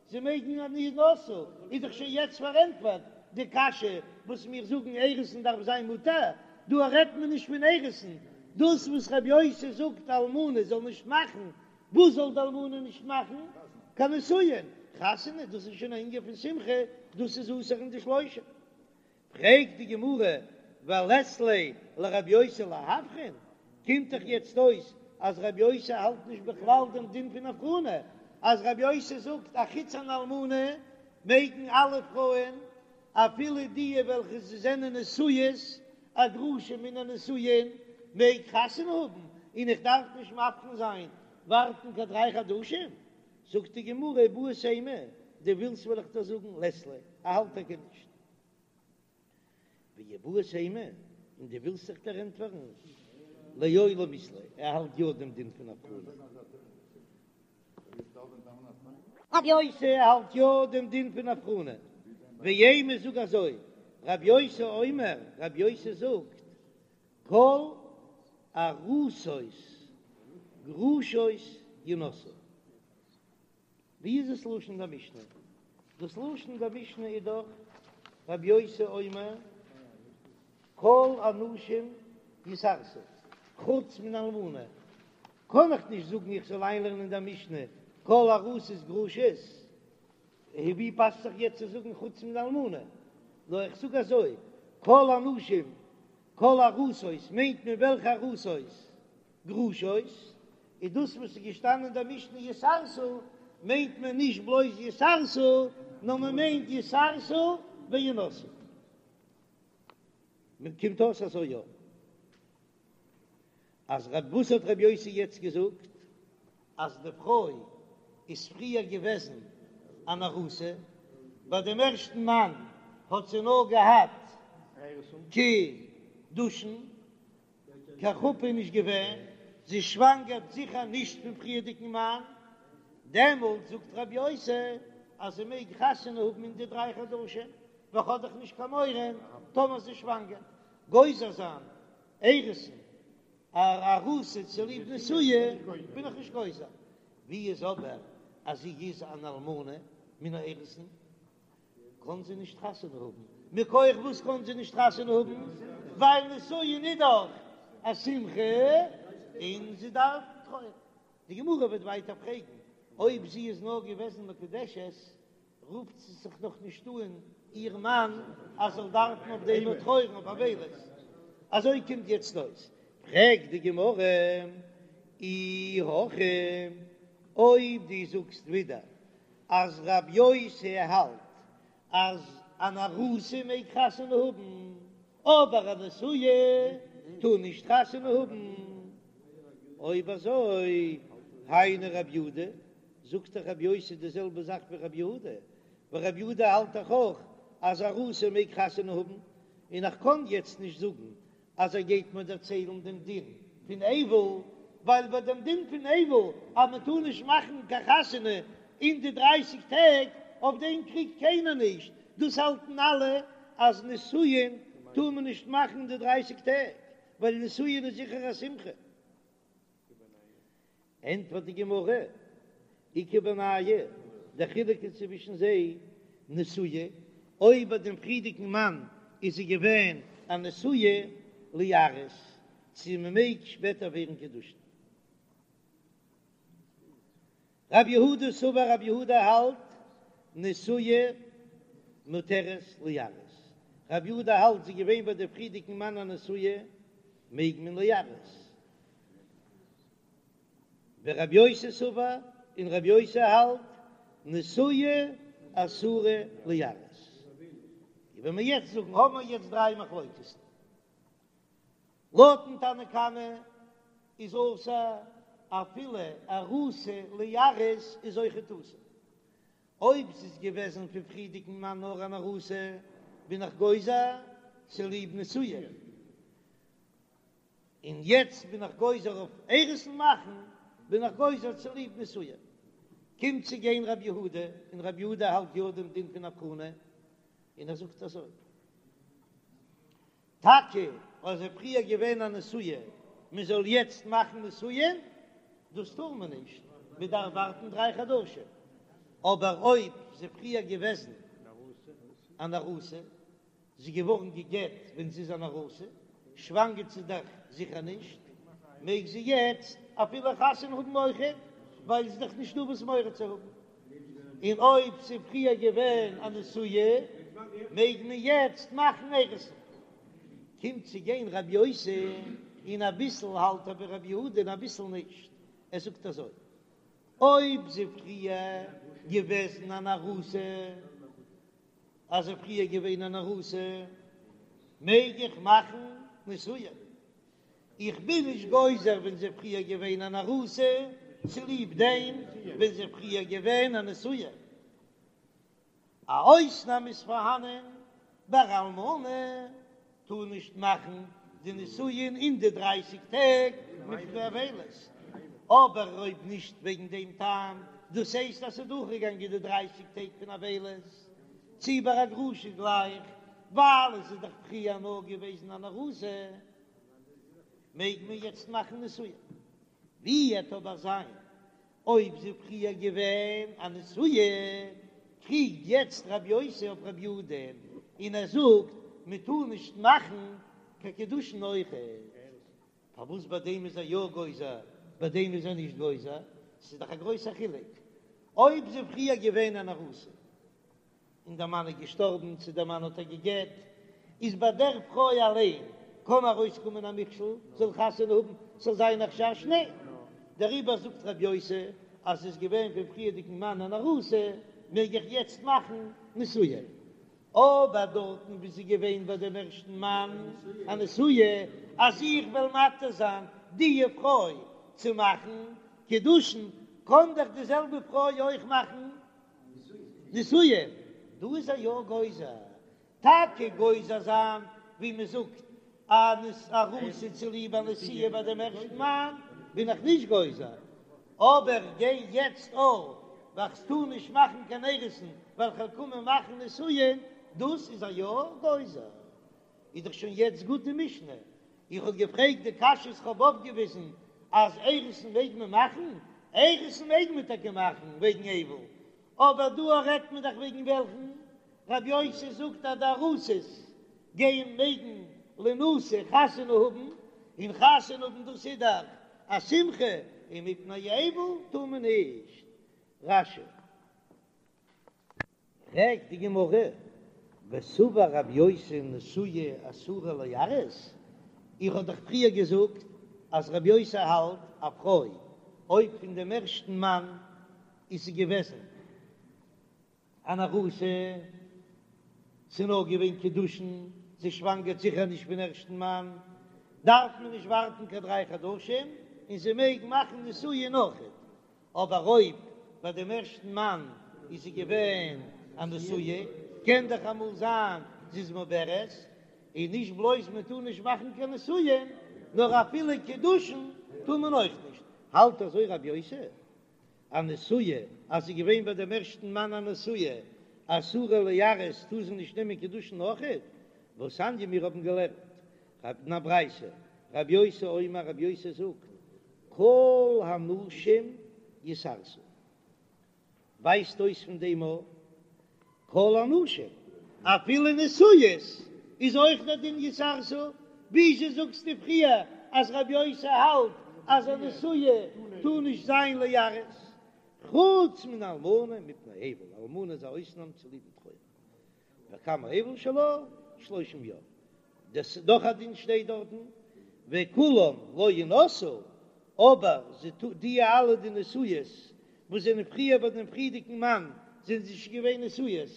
Speaker 1: זיי מעגן אין ינשאו, איז דאך שוין יעצט פארענטפערט די קשיא וואס מיר זאגן אירוסין דארף זיין מותר, דא רעדט מען נישט פון אירוסין, דאס וואס רבי יוסי זאגט אלמנה זאל נישט מאכן, וואס זאל די אלמנה נישט מאכן? קיין נישואין, חתונה, דאס איז שוין א ענין פון שמחה, דאס איז אסור אין די שלושה. פרעגט די גמרא, ולית ליה לרבי יוסי להבחין, קומט דאך יעצט אויס אז רבי יוסי האלט נישט בכלל דעם דין פון הבחנה, אז רבי יוסי זאגט א חוץ אן אלמנה מעגן אלע פרויען אפילו די וועלכע זענען נשואות, א גרושה מן הנישואין מעג חתונה האבן, און איך דארף נישט מבחין זיין ווארטן קיין דריי חדשים, זאגט די גמרא איבעית אימא, דו ווילסט וועל איך דיר זאגן לית ליה. ער האלט טאקע נישט. ואיבעית אימא, און דו ווילסט זיך דערענטפערן, לעולם אית ליה, ער האלט יא דעם דין פון הבחנה. רבי יוסי האלט יא דעם דין פון הבחנה, ואימא זאג אזוי, רבי יוסי אומר, רבי יוסי זאגט, כל ארוסות גרושות ינשאו. ווי איז דאס לשון דער משנה? דאס לשון דער משנה איז דאך רבי יוסי אומר כל הנשים יתארסו חוץ מן האלמנה, קען איך נישט זאגן איך זאל איינלערנען דער משנה כל ארוסות גרושות, ווי פאסט זיך יעצט צו זאגן חוץ מן האלמנה? נאר איך זאג אזוי כל הנשים כל ארוסות מיינט מען וועלכע ארוסות? גרושות, איז דאס וואס איז געשטאנען אין דער משנה יתארסו, מיינט מען נישט בלויז יתארסו, נאר מען מיינט יתארסו וינשאו. מען קומט אויס אזוי יא, אז רב וואס האט רבי יוסי יעצט געזאגט? אז די פרוי איז פריער געוועזן אן ארוסה, ביי דעם ערשטן מאן האט זי נאר געהאט קידושין, קיין חופה איז נישט געווען, זי שוואנגערט זיכער נישט פון פריערדיגן מאן, דעמאלט זאגט רבי יוסי אז זי מעג חתונה האבן אין די דריי חדשים, ווייל כ'האב דאך נישט קיין מורא טאמער זי שוואנגערט, גוזר זיין אירוסין א ארוסה צוליב נשואה בין איך נישט גוזר, ווי איז אבער אז זי איז אן אלמנה מן האירוסין? קאָן זי נישט חתונה האָבן. מכּוח וואָס קאָן זי נישט חתונה האָבן? ווייל נישׂואין איז דאָך אַ שמחה און זי דאַרף טרויערן. די גמרא וועט ווייטער פרעגן, אויב זי איז נאָר געוועזן מקודשת, רופט זי זיך נאָך נישט אָן איר מאַן, אַז זאָל דאַרפן אויף דעם טרויערן אויף אבילות. אַזוי קומט יעצט אויס. פרעגט די גמרא, אי הכי, אויב דו זאָגסט ווידער אז רב יוסי האלט אז אן ארוסה מעג חתונה האבן, אבער א נשואה טאר נישט חתונה האבן, אויב אזוי היינו רב יהודה, זאגט דאך רב יוסי די זעלבע זאך ווי רב יהודה, ווייל רב יהודה האלט דאך אויך אז ארוסה מעג חתונה האבן, און איך קען יעצט נישט זאגן אז ער גייט מיר דערציילן דעם דין פון אבל, ווייל ביי דעם דין פון אבל אז מען טאר נישט מאכן קיין חתונה אין די דרייסיג טעג, אויף דעם קריגט קיינער נישט, דאס האלטן אלע אז נישואין טאר מען נישט מאכן אין די דרייסיג טעג, ווייל נישואין איז זיכער א שמחה. ענטפערט די גמרא, איכא בינייהו, דער חילוק איז צווישן זיי, נשואה, אויב ביי דעם פריערדיגן מאן איז זי געווען א נשואה, ליארס, צו מען מעג שפעטער ווערן קידושין. רב יהודה סבר רב יהודה האלט, נשואה מותרת ליארס, רב יהודה האלט זי איז געווען ביי דעם פריערדיגן מאן א נשואה, מעג מען ליארס. ורב יוסי סבר, און רב יוסי האלט, נשואה אסורה ליארס. ווען מיר יעצט זאגן, האבן מיר יעצט דריי מחלוקת'ן. לויטן תנא קמא איז אסור אפילו ארוסה ליארס איז אויכעט אסור. אויב ס'איז געוועזן פון פריערדיגן מאן נאר אן ארוסה, בין איך גוזר צוליב נשואה. און יעצט בין איך גוזר אויף אירוסין מאכן, בין איך גוזר צוליב נישואין. קומט צו גיין רבי יהודה, און רבי יהודה האלט יא דעם דין פון הבחנה, און ער זאגט אזוי, טאקע אז זי איז פריער געווען א נשואה, מען זאל יעצט מאכן נישואין, דאס טאר מען נישט, מען דארף ווארטן דריי חדשים, אבער אויב זי פריער געוועזן אן ארוסה, זי איז געווארן גע'גט ווען זי איז אן ארוסה, שוואנגערט זי דאך זיכער נישט, מעג זי יעצט אפילו חתונה האבן אויכעט, ווייל ס'איז דאך נישטא וואס מורא צו האבן. און אויב ס'איז פריער געווען א נשואה, מעג מען יעצט מאכן אירוסין. קומט צו גיין רבי יוסי, און אביסל האלט ער ווי רבי יהודה און אביסל נישט, ער זאגט אזוי, אויב זי פריער געוועזן אן ארוסה, אז זי פריער געווען אן ארוסה מעג איך מאכן נישואין, איך בין נישט גוזר ווען זי פריער געווען אן ארוסה צוליב דעם ווען זי פריער געווען א נשואה. א אויסנאם איז פארהאנען ביי אלמנה טאר נישט מאכן די נישואין אין די דרייסיג טעג מפני אבילות, אבער אויב נישט וועגן דעם טעם, דאס הייסט אז ס'איז דורכגעגאנגען די דרייסיג טעג פון אבילות, צי ביי א גרושה גלייך, ווייל עס איז דאך פריער נאר געוועזן אן ארוסה, מעג מען יעצט מאכן נישואין. ווי וועט אבער זיין אויב זי פריער געווען א נשואה, קריגט יעצט רבי יוסי אויף רבי יהודה און ער זאגט מען טאר נישט מאכן קיין קידושין אויכעט. פארוואס ביי דעם איז ער יא גוזר ביי דעם איז ער נישט גוזר? ס'איז דאך א גרויסע חילוק אויב זי פריער געווען אן ארוסה. און דער מאן איז געשטארבן, צו דער מאן האט איר גע'גט, איז ביי דער פרוי אליין קען ארויסקומען א מכשול, זאל חתונה האבן, ס'זאל זיין א חשש, ניין, דעריבער זאגט רבי יוסי אז ס'איז געווען פון פריערדיגן מאן אן ארוסה, מעג איך יעצט מאכן נישואין, אבער דארטן וואו ס'איז געווען ביי דעם ערשטן מאן א נשואה, אז איך וועל מתיר זיין די פרוי צו מאכן קידושין, קען דאך די זעלבע פרוי אויך מאכן נישואין, דא איז ער יא גוזר, טאקע גוזר זיין ווי מען זאגט אן ארוסה צוליב א נשואה ביי דעם ערשטן מאן בין איך נישט גוזר, אבער גיי יעצט אויף ווייל כ'טאר נישט מאכן קיין אירוסין ווייל כ'וועל קומען מאכן נישואין, דאס איז ער יא גוזר. איז דאך שוין יעצט גוט די משנה, איך האב געפרעגט די קשיות כ'האב אויפגעוויזן אז אירוסין מעג מען מאכן, אירוסין מעג מען טאקע מאכן וועגן אבל, אבער דא רעדט מען דאך וועגן וועלכן רבי יוסי זאגט אז די ארוסות גייען מעגן לינשא חתונה האבן, און חתונה האבן דאס איז דאך א שמחה, און מפני אבל טאר מען נישט. רש"י. פרעגט די גמרא, וסבר רב יוסי נשואה אסורה ליארס, איך האב דאך פריער געזאגט אז רב יוסי האלט א פרוי אויב פון דעם ערשטן מאן איז זי געוועזן אן ארוסה, ס'איז נאר געווען קידושין, זי שוואנגערט זיכער נישט פון ערשטן מאן, דארף מען נישט ווארטן קיין דריי חדשים און זי מעג מאכן נישואין אויכעט, אבער אויב ביי דעם ערשטן מאן איז זי געווען א נשואה, קען דאך אמאל זיין זי איז מעוברת, און נישט בלויז מען טאר נישט מאכן קיין נישואין, נאר אפילו קידושין טאר מען אויך נישט. האלט אזוי רבי יוסי, א נשואה אז זי איז געווען ביי דעם ערשטן מאן א נשואה, אסורה ליארס, טאר זי נישט נעמען קידושין אויכעט, והתניא מיר האבן געלערנט אין א ברייתא, רבי יוסי אומר רבי יוסי זאגט, כל הנשים יתארסו, ווייזט אויס פון דעם א כל הנשים, אפילו נשואות איז אויך דער דין יתארסו, וויאזוי זאגסטו פריער אז רבי יוסי האלט אז א נשואה טאר נישט זיין ליארס, חוץ מן האלמנה מפני אבל, אלמנה איז א אויסנאם צוליבן טרויער. וכמה אבל שלה? שלושים יום. דאס איז דאך א דין שטייט דארטן, וכולם לא ינשאו, אבער זיי טא די אלע די נשואות וואס זענען פריער ביי דעם פריערדיגן מאן זענען זיי נישט געווען נשואות,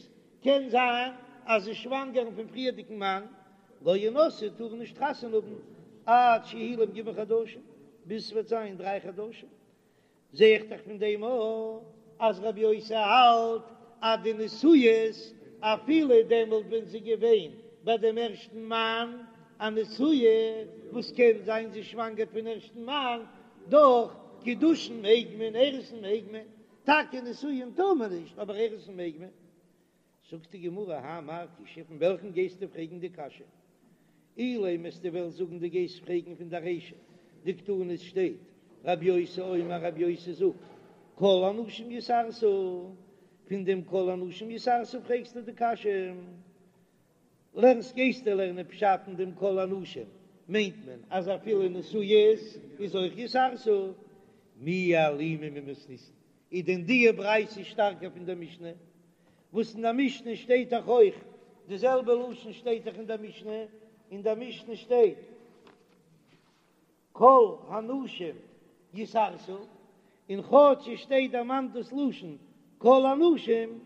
Speaker 1: קען זיין אז זיי שוואנגערן פון פריערדיגן מאן, לא ינשאו טארן נישט חתונה האבן עד שיהי' להם ג' חדשים, ביז ס'וועט זיין דריי חדשים. זע איך דאך פון דעם אויך אז רבי יוסי האלט אז די נשואות אפילו דעמאלט ווען זי געווען ביי דעם ערשטן מאן א נשואה וואס קען זיין זי שוואנגערט פון ערשטן מאן, דאך קידושין מעג מען, אירוסין מעג מען, טאקע נישואין טאר מען נישט אבער אירוסין מעג מען. זאגט די גמרא, האי מאי קושיא, פון וועלכן גייסטו פרעגן די קשיא? אילימא וועסטו וועלן זאגן דו גייסט פרעגן פון די רישא דקתני עס שטייט רבי יוסי אומר רבי יוסי זאגט כל הנשים יתארסו, פון דעם כל הנשים יתארסו פרעגסטו די קשיא? לערנסט גייסטו לערנען פשט אין דעם כל הנשים מיינט מען אז אפילו נשואות איז אויך יתארסו, מי אלימא ממתניתין איז דען די ברייתא שטארקער פון דער משנה? וואס אין דער משנה שטייט דאך אויך די זעלבע לשון שטייט דאך אין דער משנה, אין דער משנה שטייט כל הנשים יתארסו, און כאטש עס שטייט דערמאנט דאס לשון כל הנשים,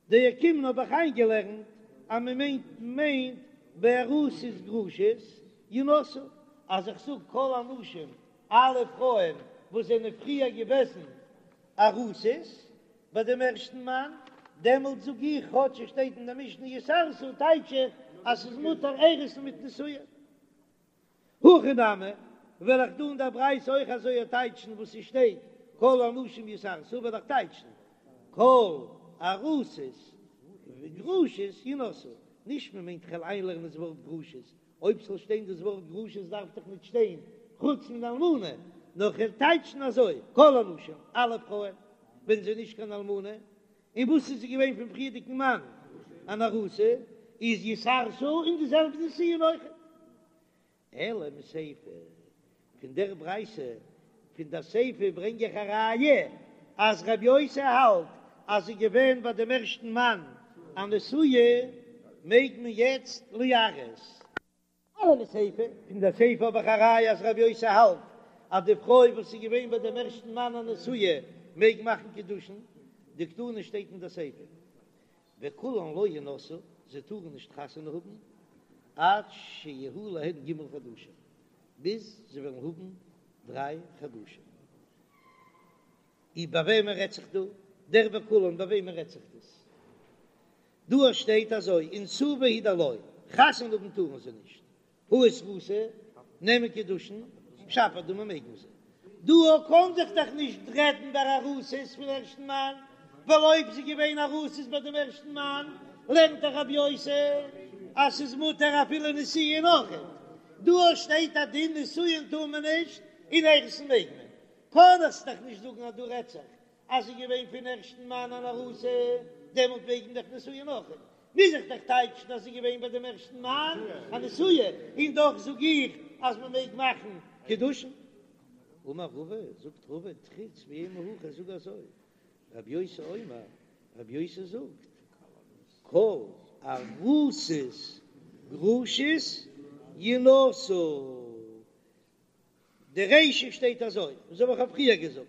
Speaker 1: דאוקימנא האב איך איינגעלערנט אז מען מיינט מיינט בארוסות גרושות ינשאו, אז איך זאג כל הנשים אלע פרויען וואס זענען פריער געוועזן ארוסות ביי דעם ערשטן מאן. דעמאלט זאג איך כאטש עס שטייט אין די משנה יתארסו טייטש איך אז ס'איז מותר אירוסין מיט נישואין. הכא נמי, וועל איך דא אין דער ברייתא אויך אזוי טייטשן וואס ס'שטייט כל הנשים יתארסו וועל איך טייטשן כל ארוסות וגרושות ינשאו, נישט מען מיינט כ'וועל איינלערנען דאס ווארט גרושות, אויב ס'זאל שטיין דאס ווארט גרושות דארף דאך נישט שטיין חוץ מן אלמנה, נאר כ'וועל טייטשן אזוי כל הנשים אלע פרויען ווען זי איז נישט קיין אלמנה, און וואס איז זי געווען פון פריערדיגן מאן אן ארוסה, איז יתארסו און די זעלבע נישואין אויכעט. אלא מסיפא, פון דער ברייתא פון דער סיפא ברענג איך א ראיה אז רבי יוסי האלט אז זי איז געווען ביי דעם ערשטן מאן א נשואה, מעג מען יעצט ליארס. אלא מסיפא, פון דער סיפא האב איך א ראיה אז רבי יוסי האלט אז די פרוי וואס איז געווען ביי דעם ערשטן מאן א נשואה מעג מאכן קידושין, דקתני שטייט אין דער סיפא וכולן לא ינשאו, זיי טארן נישט חתונה האבן עד שיהיו להן ג' חדשים, ביז זיי וועלן האבן דריי חדשים. איז ביי וועמען רעדט זיך דא? דער וכולן ביי וועמען רעדט זיך דאס? דא שטייט אזוי, אינסובי הוא דלא, חתונה האבן טארן זיי נישט, הא איתרוסי, נעמען קידושין, שפיר דמי מעג מען זיי. דא קאן זיך דאך נישט רעדן ביי ארוסות פון ערשטן מאן, ווייל אויב זי געווען ארוסות ביי דעם ערשטן מאן, לערנט דאך רבי יוסי אז ס'איז מותר אפילו נישואין אויכעט. דא שטייט א דין נישואין טאר מען נישט און אירוסין מעג מען. קאן איך דאך נישט זאגן אז דא רעדט זיך אז זי געווען פון ערשטן מאן אן ארוסה, דעמאלט מעג מען דאך נישואין אויכעט. מוז איך דאך טייטשן אז זי געווען ביי דעם ערשטן מאן א נשואה, און דאך זאג איך אז מען מעג מאכן קידושין. אמר רבא, זאגט רבא, תריץ ואימא הכי, זאג אזוי, רבי יוסי אומר, רבי יוסי זאגט, כל ארוסות גרושות ינשאו. די רישא שטייט אזוי, אזוי ווי איך האב פריער געזאגט,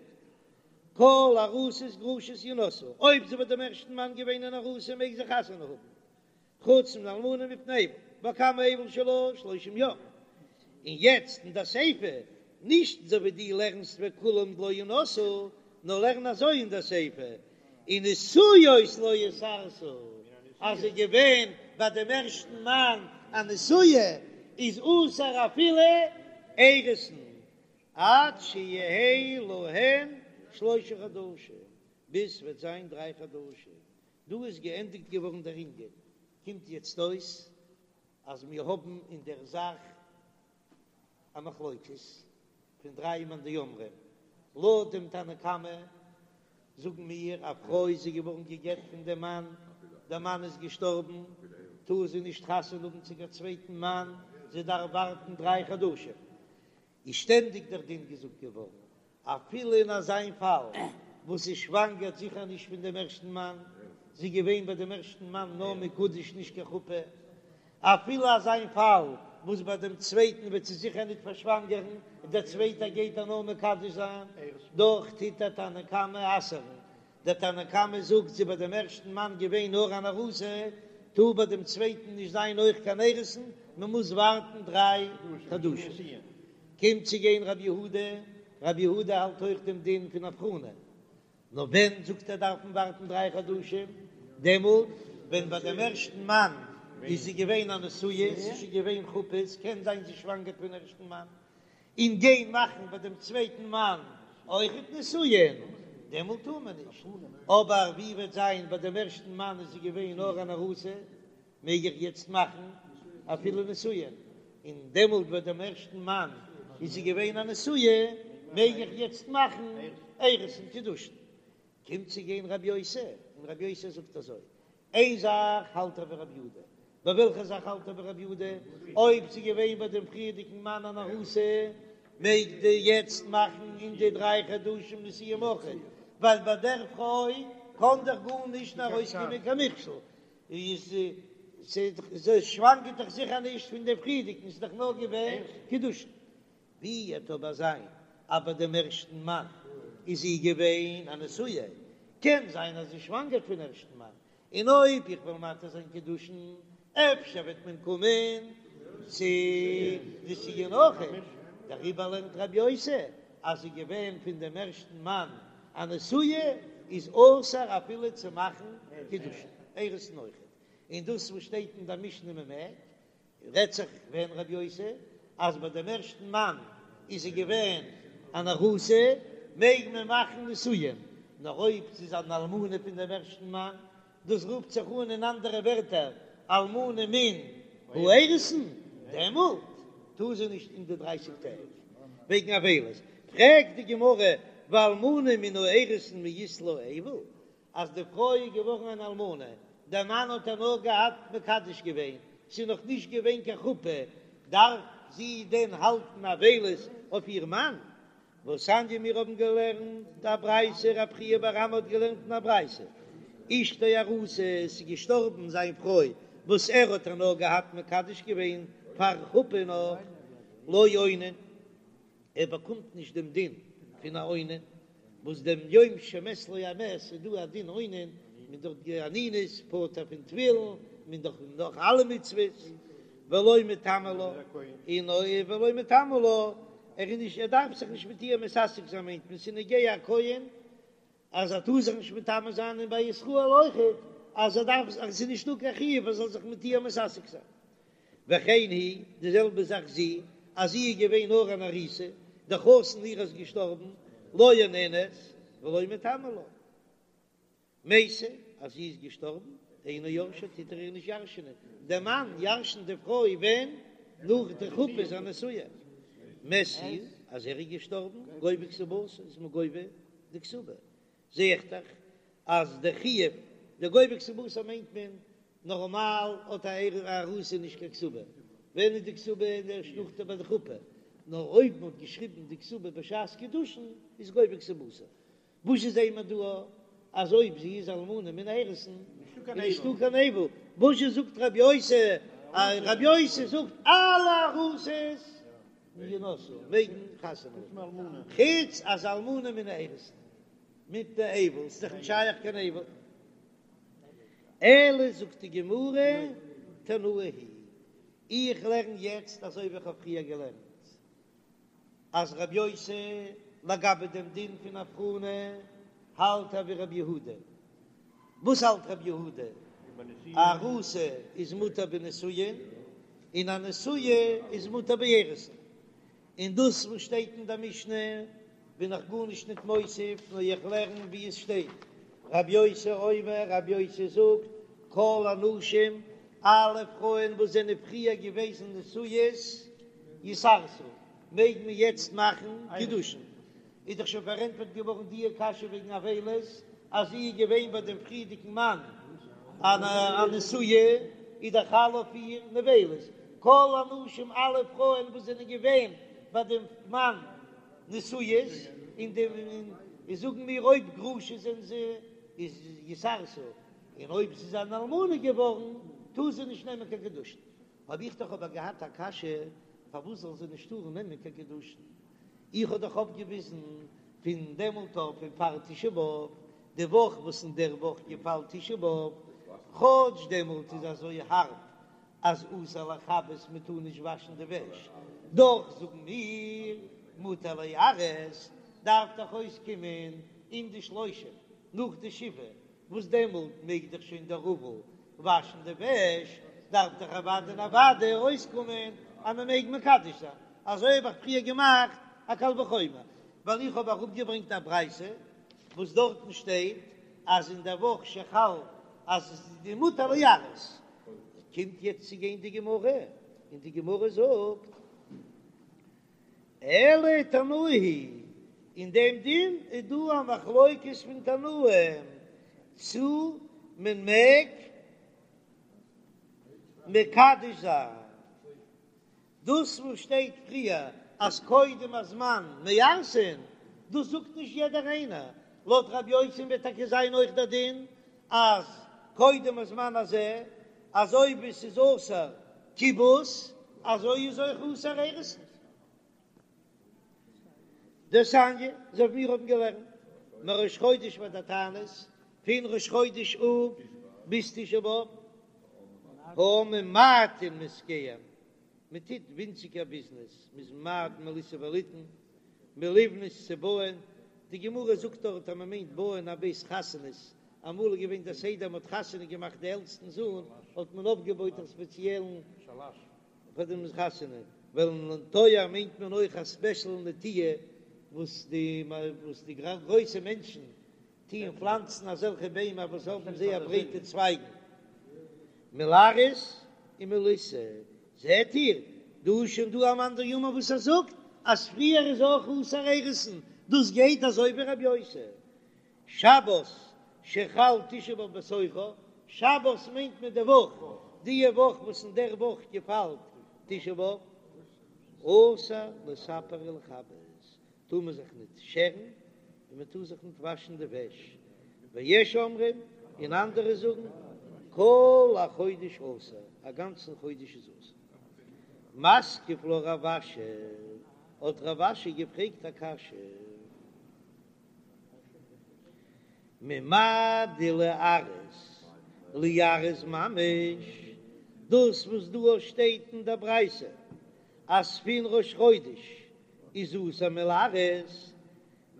Speaker 1: כל ארוסות גרושות ינשאו, אויב זי ביי דעם ערשטן מאן געווען אן ארוסה מעג זי חתונה האבן, חוץ מן האלמנה מפני אבל, וכמה אבל שלה שלושים יום, און יעצט אין די סיפא, נישט אזוי ווי דו לערנסט וכולם לא ינשאו, נאר לערן אזוי אין די סיפא, ונשואות לא יתארסו, אז זי איז געווען ביי דעם ערשטן מאן א נשואה, איז אסור אפילו אירוסין, עד שיהא להן שלושה חדשים, ביז ס'וועט זיין דריי חדשים. דא איז געענדיגט געווארן דער ענין, קומט יעצט אויס אז מיר האבן אין דער זאך א מחלוקת פון דריי מאן דאמרים, לויט דעם תנא קמא זאגן מיר א פרוי איז זי געווארן גע'גט פון דעם מאן, דער מאן איז געשטארבן, טאר זי נישט חתונה האבן צו קיין צווייטן מאן, זי דארף ווארטן דריי חדשים, איז שטענדיג דער דין געזאגט געווארן, אפילו אין אזיין פאל וואס זי שוואנגערט זיכער נישט פון דעם ערשטן מאן, זי איז געווען ביי דעם ערשטן מאן נאר מקודש נישט קיין חופה, אפילו אזיין פאל וואס ביי דעם צווייטן וועט זי זיכער ניט פארשוואנגערן און דער צווייטער גייט איר נאר מקדש זיין, דאך טוט דער תנא קמא אסר'ן דער תנא קמא זאגט זי ביי דעם ערשטן מאן געווען נאר אן ארוסה, טאר ביי דעם צווייטן נישט זיין אויך קיין אירוסין, מען מוז ווארטן דריי חדשים. קומט צו גיין רבי יהודה, רבי יהודה האלט אויך דעם דין פון הבחנה, נאר ווען זאגט ער דארף מען ווארטן דריי חדשים, דעמאלט ווען ביי דעם ערשטן מאן איז זי געווען א נשואה, ס'איז שוין געווען חופות, קען זיין זי שוואנגערט פון ערשטן מאן, און גיין מאכן ביי דעם צווייטן מאן אויכעט נישואין, דעמאלט טאר מען נישט, אבער ווי וועט זיין ביי דעם ערשטן מאן איז זי געווען נאר אן ארוסה, מעג איך יעצט מאכן אפילו נישואין, און דעמאלט ביי דעם ערשטן מאן איז זי געווען א נשואה, מעג איך יעצט מאכן אירוסין קידושין. קומט צו גיין רבי יוסי, און רבי יוסי זאגט אזוי, איין זאך האלט ער ווי רבי יהודה, ביי וועלכע זאך האלט ער ווי רבי יהודה? אויב ס'איז געווען ביי דעם פריערדיגן מאן אן ארוסה, מעג די יעצט מאכן אין די דריי חדשים נישואין אויכעט, ווייל ביי דער פרוי קען דאך גארנישט ארויסקומען קיין מכשול, איז זי שוואנגערט דאך זיכער נישט פון דעם פריערדיגן, ס'איז דאך נאר געווען קידושין. ווי וועט אבער זיין אז ביי דעם ערשטן מאן איז זי געווען א נשואה, קען זיין אז זי שוואנגערט פון ערשטן מאן, און אויב איך וועל מתיר זיין קידושין אפשר וועט מען קומען צו נישואין אויכעט, דעריבער לערנט רבי יוסי אז זי געווען פון דעם ערשטן מאן א נשואה איז אסור אפילו צו מאכן. קידושין, אירוסין אויכעט, און דאס וואס שטייט אין די משנה מען מעג, רעדט זיך ווען רבי יוסי אז ביי דעם ערשטן מאן איז זי געווען אן ארוסה מעג מען מאכן נישואין, נאר אויב זי איז אן אלמנה פון דעם ערשטן מאן, דאס רופט זיך אן אין אנדערע ווערטער אלמנה מן האירוסין, דעמאלט טאר זי נישט אין די דרייסיג טעג וועגן אבילות. פרעגט די גמרא ואלמנה מן האירוסין מי אית לה אבל, אז די פרוי איז געווארן אן אלמנה, דער מאן האט איר נאר געהאט מקדש געווען, ס'איז נאך נישט געווען קיין חופה, דארף זי דען האלטן אבילות אויף איר מאן? והתניא מיר האבן געלערנט א ברייתא, רב חייא בר אמי האט געלערנט אין א ברייתא, אשתו ארוסה, עס איז געשטארבן זיין פרוי וואס ער האט איר נאר געהאט מקדש געווען פאר חופה נאך, לא אונן. ער באקומט נישט דעם דין פון א אונן, וואס דעם יום שמת לו המת איז דא א דין אונן, מען דאך די אנינות פטור פון תפילין, מען דאך נאך אלע מצוות, ולא מיטמא לה, און ולא מיטמא לה, ער איז נישט ער דארף זיך נישט מיט איר מתעסק זיין מיינט מען ס'איז נוגע א כהן אז ער טאר זיך נישט מטמא זיין און ביי ישראל אויכעט אז ער דארף אז עס איז נישטא קיין חיוב ער זאל זיך מיט איר מתעסק זיין. וכן היא, די זעלבע זאך זי, אז זי איז געווען נאר אן ארוסה, דער חתן איר איז געשטארבן, לא אוננת ולא מיטמא לה. מתה, אז זי איז געשטארבן, אינו יורשה, טוט ער איר נישט ירש'נען, דער מאן ירש'נט די פרוי ווען? נאך די חופה איז א נשואה. מת הוא, אז ער איז געשטארבן, גובה כתובתה, איז מען גובה די כתובה, זע איך דאך אז די חיוב די גובה כתובתה מיינט מען נארמאל האט א ארוסה נישט קיין כתובה, ווען איז די כתובה ערשט נאכדעם ביי די חופה, נאר אויב מען האט געשריבן די כתובה בשעת קידושין איז גובה כתובתה, וואס איז זעהן מיר דא אז אויב זי איז אלמנה מן האירוסין איז נישטא קיין אבל, וואס זשע זאגט רבי יוסי, רבי יוסי זאגט אלע ארוסות ינשאו מעגן חתונה האבן, חוץ אז אלמנה מן האירוסין מפני אבל, ס'איז דאך נישט שייך קיין אבל. אלא זאגט די גמרא תנאי היא, איך לערן יעצט אזוי ווי איך האב פריער געלערנט אז רבי יוסי לגבי דעם דין פון הבחנה האלט ער ווי רבי יהודה, וואס האלט רבי יהודה? ארוסה איז מותר בנישואין און א נשואה איז מותר באירוסין, און דאס וואס שטייט אין דער משנה בין איך גארנישט ניט מוסיף, נאר איך לערן ווי עס שטייט, רבי יוסי אומר, רבי יוסי זאגט, כל הנשים, אלע פרויען וואס זענען פריער געוועזן נשואות, יתארסו, מעג מען יעצט מאכן קידושין. איז דאך שוין פארענטפערט געווארן דיע קשיא וועגן אבילות, אז זי איז געווען ביי דעם פריערדיגן מאן א נשואה, איז דאך חל אויף איר נבלות. כל הנשים אלע פרויען וואס זענען געווען ביי דעם מאן נשואות, און די און זאגן מיר אויב גרושה זענען זיי, איז יתארסו, און אויב זי איז אן אלמנה געווארן, טאר זי נישט נעמען קיין קידושין. האב איך דאך אבער געהאט א קשיא, פארוואס זאל זי נישט טארן נעמען קיין קידושין? איך האב דאך אויפגעוויזן פון דעמאלט אויף פון פאר תשעה באב, די וואך וואס אין דער וואך געפאלט תשעה באב, כאטש דעמאלט איז אזוי הארב אז אסור לכבס מען טאר נישט וואשן די וועש, דאך זאגן מיר מותר ליארס, דארף דאך אויסקומען אין די שלושים נאך די שבעה וואס דעמאלט מעג דאך שוין דער אבל וואשן די וועש, דארף דאך אוודאי און אוודאי אויסקומען אז מען מעג מקדש זיין, אזוי האב איך פריער געמאכט א קל וחומר, ווייל איך האב אראפגעברענגט א ברייתא וואס דארטן שטייט אז אין דער וואך שחל אז עס איז מותר ליארס, קומט יעצט צו גיין די גמרא און די גמרא זאגט. אלא תנאי היא, אין דעם דין איז דא א מחלוקת פון תנאים צו מען מעג מקדש זיין דאס וואס שטייט פריער אז קודם הזמן מארסין, דאס זאגט נישט יעדער איינער, לויט רבי יוסי'ן וועט טאקע זיין אויך דער דין אז קודם הזמן הזה, אזוי ווי ס'איז אסור כיבוס, אזוי איז אויך אסור אירוסין. דתניא, אזוי ווי מיר האבן געלערנט, מראש חודש ועד התענית, פון ראש חודש אב ביז תשעה באב, העם ממעטין מעסקיהם, מען טוט ווינציגער ביזנעס, מען איז ממעט מלישא וליתן, מלבנות צו בויען, די גמרא זאגט דארט אז מען מיינט בויען א בית חתנות. אמאל איז געווען דער סדר מען האט חתונה געמאכט די עלטסטן זוהן האט מען אויפגעבויט א ספעציעלן פאר דעם חתונה, ולנטוע מיינט מען אויך א ספעשל נטיעה וואס די וואס די גרויסע מענטשן טוען פלאנצן אזעלכע ביימער וואס האבן זייער ברייטע צווייגן, מלארס און מלישא, זעט איר, דא איז שוין דא א מאן דאמר וואס ער זאגט אז פריער איז אויך אסור אירוסין, דאס גייט אזוי ווי רבי יוסי. שבת שחל תשעה באב בתוכה, שבת מיינט מען די וואך, די וואך וואס אין דער וואך געפאלט תשעה באב, אסור לספר ולכבס, טאר מען זיך ניט שערן און מען טאר זיך ניט וואשן די וועש, ויש אומרים, און אנדערע זאגן, כל החודש אסור, א גאנצן חודש איז אסור. מתקיף לה רב אשי, האט רב אשי געפרעגט א קשיא. ממאי דליארס ליארס ממש, דאס וואס דא שטייט אין דער ברייתא אז פון ראש חודש איז אסור מליארס,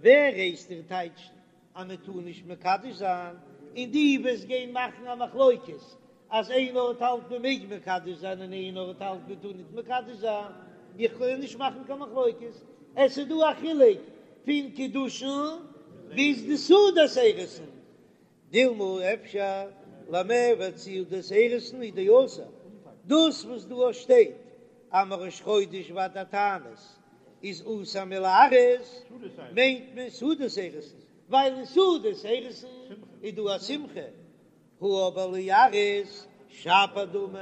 Speaker 1: ווער הייסט דיר טייטשן אז מען טאר נישט מקדש זיין, און דו וועסט גיין מאכן א מחלוקת אז איין ארט האלט מען מעג מקדש זיין און איין ארט האלט מען טאר ניט מקדש זיין, איך קען נישט מאכן קיין מחלוקת, עס איז דא א חילוק פון קידושין ביז די סעודת אירוסין, דילמא אפשר למיעבד סעודת אירוסין הוא דאסור, דאס וואס דא שטייט אז מראש חודש ועד התענית איז אסור מליארס מיינט מען סעודת אירוסין, ווייל אין סעודת אירוסין איז דא א שמחה, הא אבער ליארס שפיר דמי,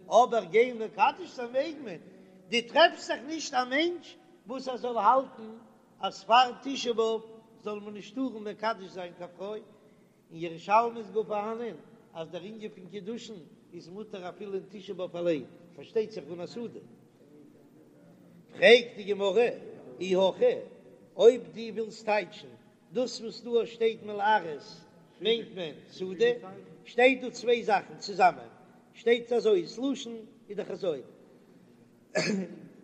Speaker 1: אבער גיין מקדש זיין מעג מען, דו טרעפסט זיך נישט א מענטש וואס ער זאל האלטן אז פאר תשעה באב זאל מען נישט טארן מקדש זיין קיין פרוי, אין ירושלמי איז גאר פארהאנען אז דער ענין פון קידושין איז מותר אפילו אין תשעה באב אליין, פארשטייט זיך אן א סעודה. פרעגט די גמרא, אי הכי, אויב דו ווילסט טייטשן דאס וואס דא שטייט מליארס מיינט מען סעודה, שטייט דא צוויי זאכן צוזאמען, שטייט אזוי, ס'לשון איז דאך אזוי,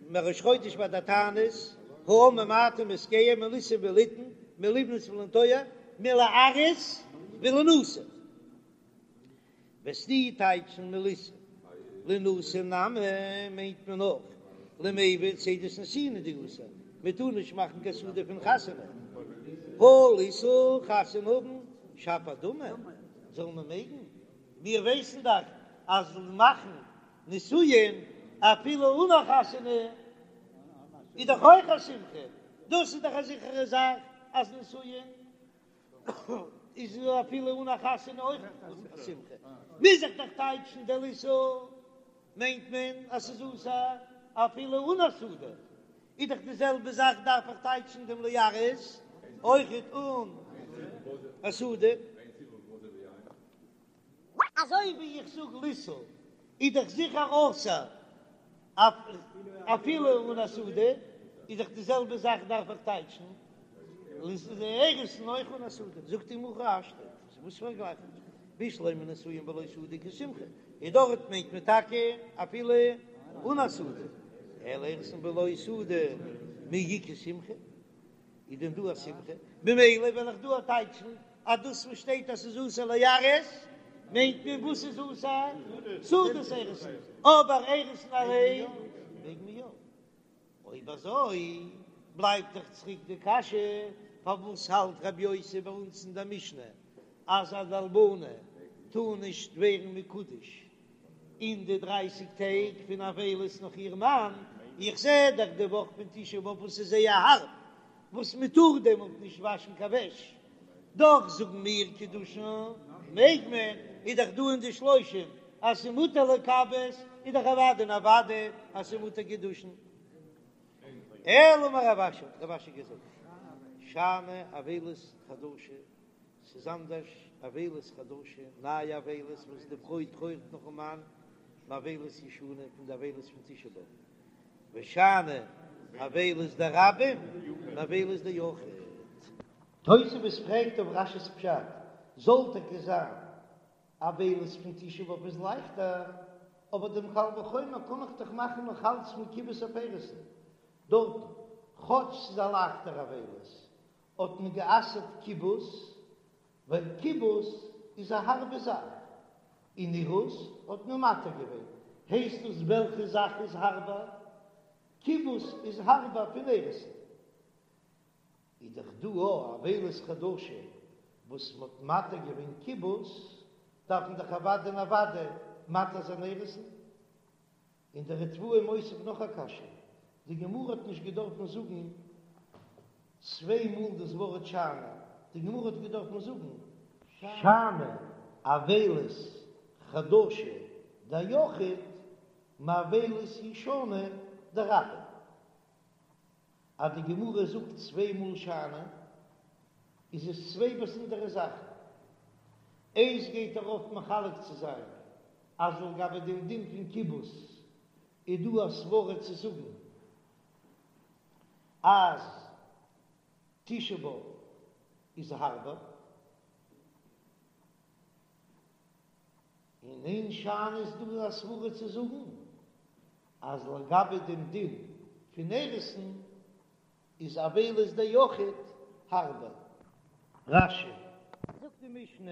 Speaker 1: מראש חודש ועד התענית, העם ממעטין בעסקיהם מלישא וליתן, מלבנות ולנטוע, מליארס ולינשא. וועסטו טייטשן מלישא לינשא נמי מיינט מען אויך למיעבד סעודת נישואין הוא דאסור, מען טאר נישט מאכן קיין סעודה פון חתונה, הא לישא חתונה האבן שפיר דמי זאל מען מעגן, מיר ווייסן דאך אז מאכן נישואין אפילו אן א חתונה איז דאך אויך א שמחה, דאס איז דאך א זיכערע זאך אז נישואין איז אפילו אן א חתונה אויך א שמחה, מוז איך דאך טייטשן די לישא מיינט מען אז ס'איז אסור אפילו אן א סעודה, איז דאך די זעלבע זאך דארף איך טייטשן דעם ליארס אויכעט אן א סעודה. אזוי ווי איך זאג לישא איז דאך זיכער אסור אפילו אן א סעודה, איז דאך די זעלבע זאך דארף איך טייטשן אירוסין אויך אן א סעודה, זאגט די גמרא הכי השתא, וואס פארגלייכט מען בשלמא נישואין בלא סעודה איכא שמחה, און דארט מיינט מען טאקע אפילו אן א סעודה, אלא אירוסין בלא סעודה מי איכא שמחה. איז דען דא א שמחה? ממילא וועל איך דא טייטשן אז דאס וואס שטייט אז ס'איז אסור ליארס מיינט מען וואס איז אסור? סעודת אירוסין, אבער אירוסין אליין מעג מען יא. אויב אזוי בלייבט דאך צוריק די קשיא, פארוואס האלט רבי יוסי ביי אונז אין דער משנה אז אן אלמנה טאר נישט ווערן מקודש אין די דרייסיג טעג פון אבילות נאך איר מאן, איך זע דאך די וואך פון תשעה באב וואס איז זייער הארב, וואס מען טאר דעמאלט נישט וואשן קיין וועש, דאך זאגן מיר קידושין מעג מען, איז דאך דא אין די שלושים אז ס'איז מותר לכבס, איז דאך אוודאי און אוודאי אז ס'איז מותר קידושין. אלא אמר רב אשי, האט רב אשי געזאגט, שאני אבילות חדשה, ס'איז אנדערש אבילות חדשה, נייע אבילות וואס די פרוי טרויערט נאכן מאן, מאבילות ישנה, פון די אבילות פון תשעה באב, ושאני אבילות דרבים מאבילות דיחיד. תוספות פרעגט אויף רש"י'ס פשט, זאל טאקע זיין אבילות פון תשעה באב איז לייכטער, אבער דעם קל וחומר קען איך דאך מאכן נאך אלץ פון כיבוס אויף אירוסין דארטן, כאטש ס'איז א לייכטער אבילות, האט מען גע'אסר'ט כיבוס. ווייל כיבוס איז א הארבע זאך, און אירוס האט מען מתיר געווען, הייסט דאס וועלכע זאך איז הארבער? כיבוס איז הארבער פון אירוסין. איז דאך דא א אבילות חדשה וואס מ'האט מתיר געווען כיבוס, דארף מען דאך אוודאי און אוודאי מתיר זיין אירוסין. און דער ריטב"א איז מוסיף נאך א קשיא, די גמרא האט נישט געדארפן זאגן צוויי מאל דאס ווארט שאני, די גמרא האט געדארפן זאגן שאני אבילות חדשה דיחיד מאבילות ישנה דרבים. אז די גמרא זאגט צוויי מאל שאני, איז עס צוויי באזונדערע זאכן. איינס גייט ארויף מחלק צו זיין אז לגבי דעם דין פון כיבוס איז דא א סברא צו זאגן אז תשעה באב איז הארבער, און אין שאני איז דא א סברא צו זאגן אז לגבי דעם דין פון אירוסין איז אבילות דיחיד הארבער. רש"י. זאגט די משנה.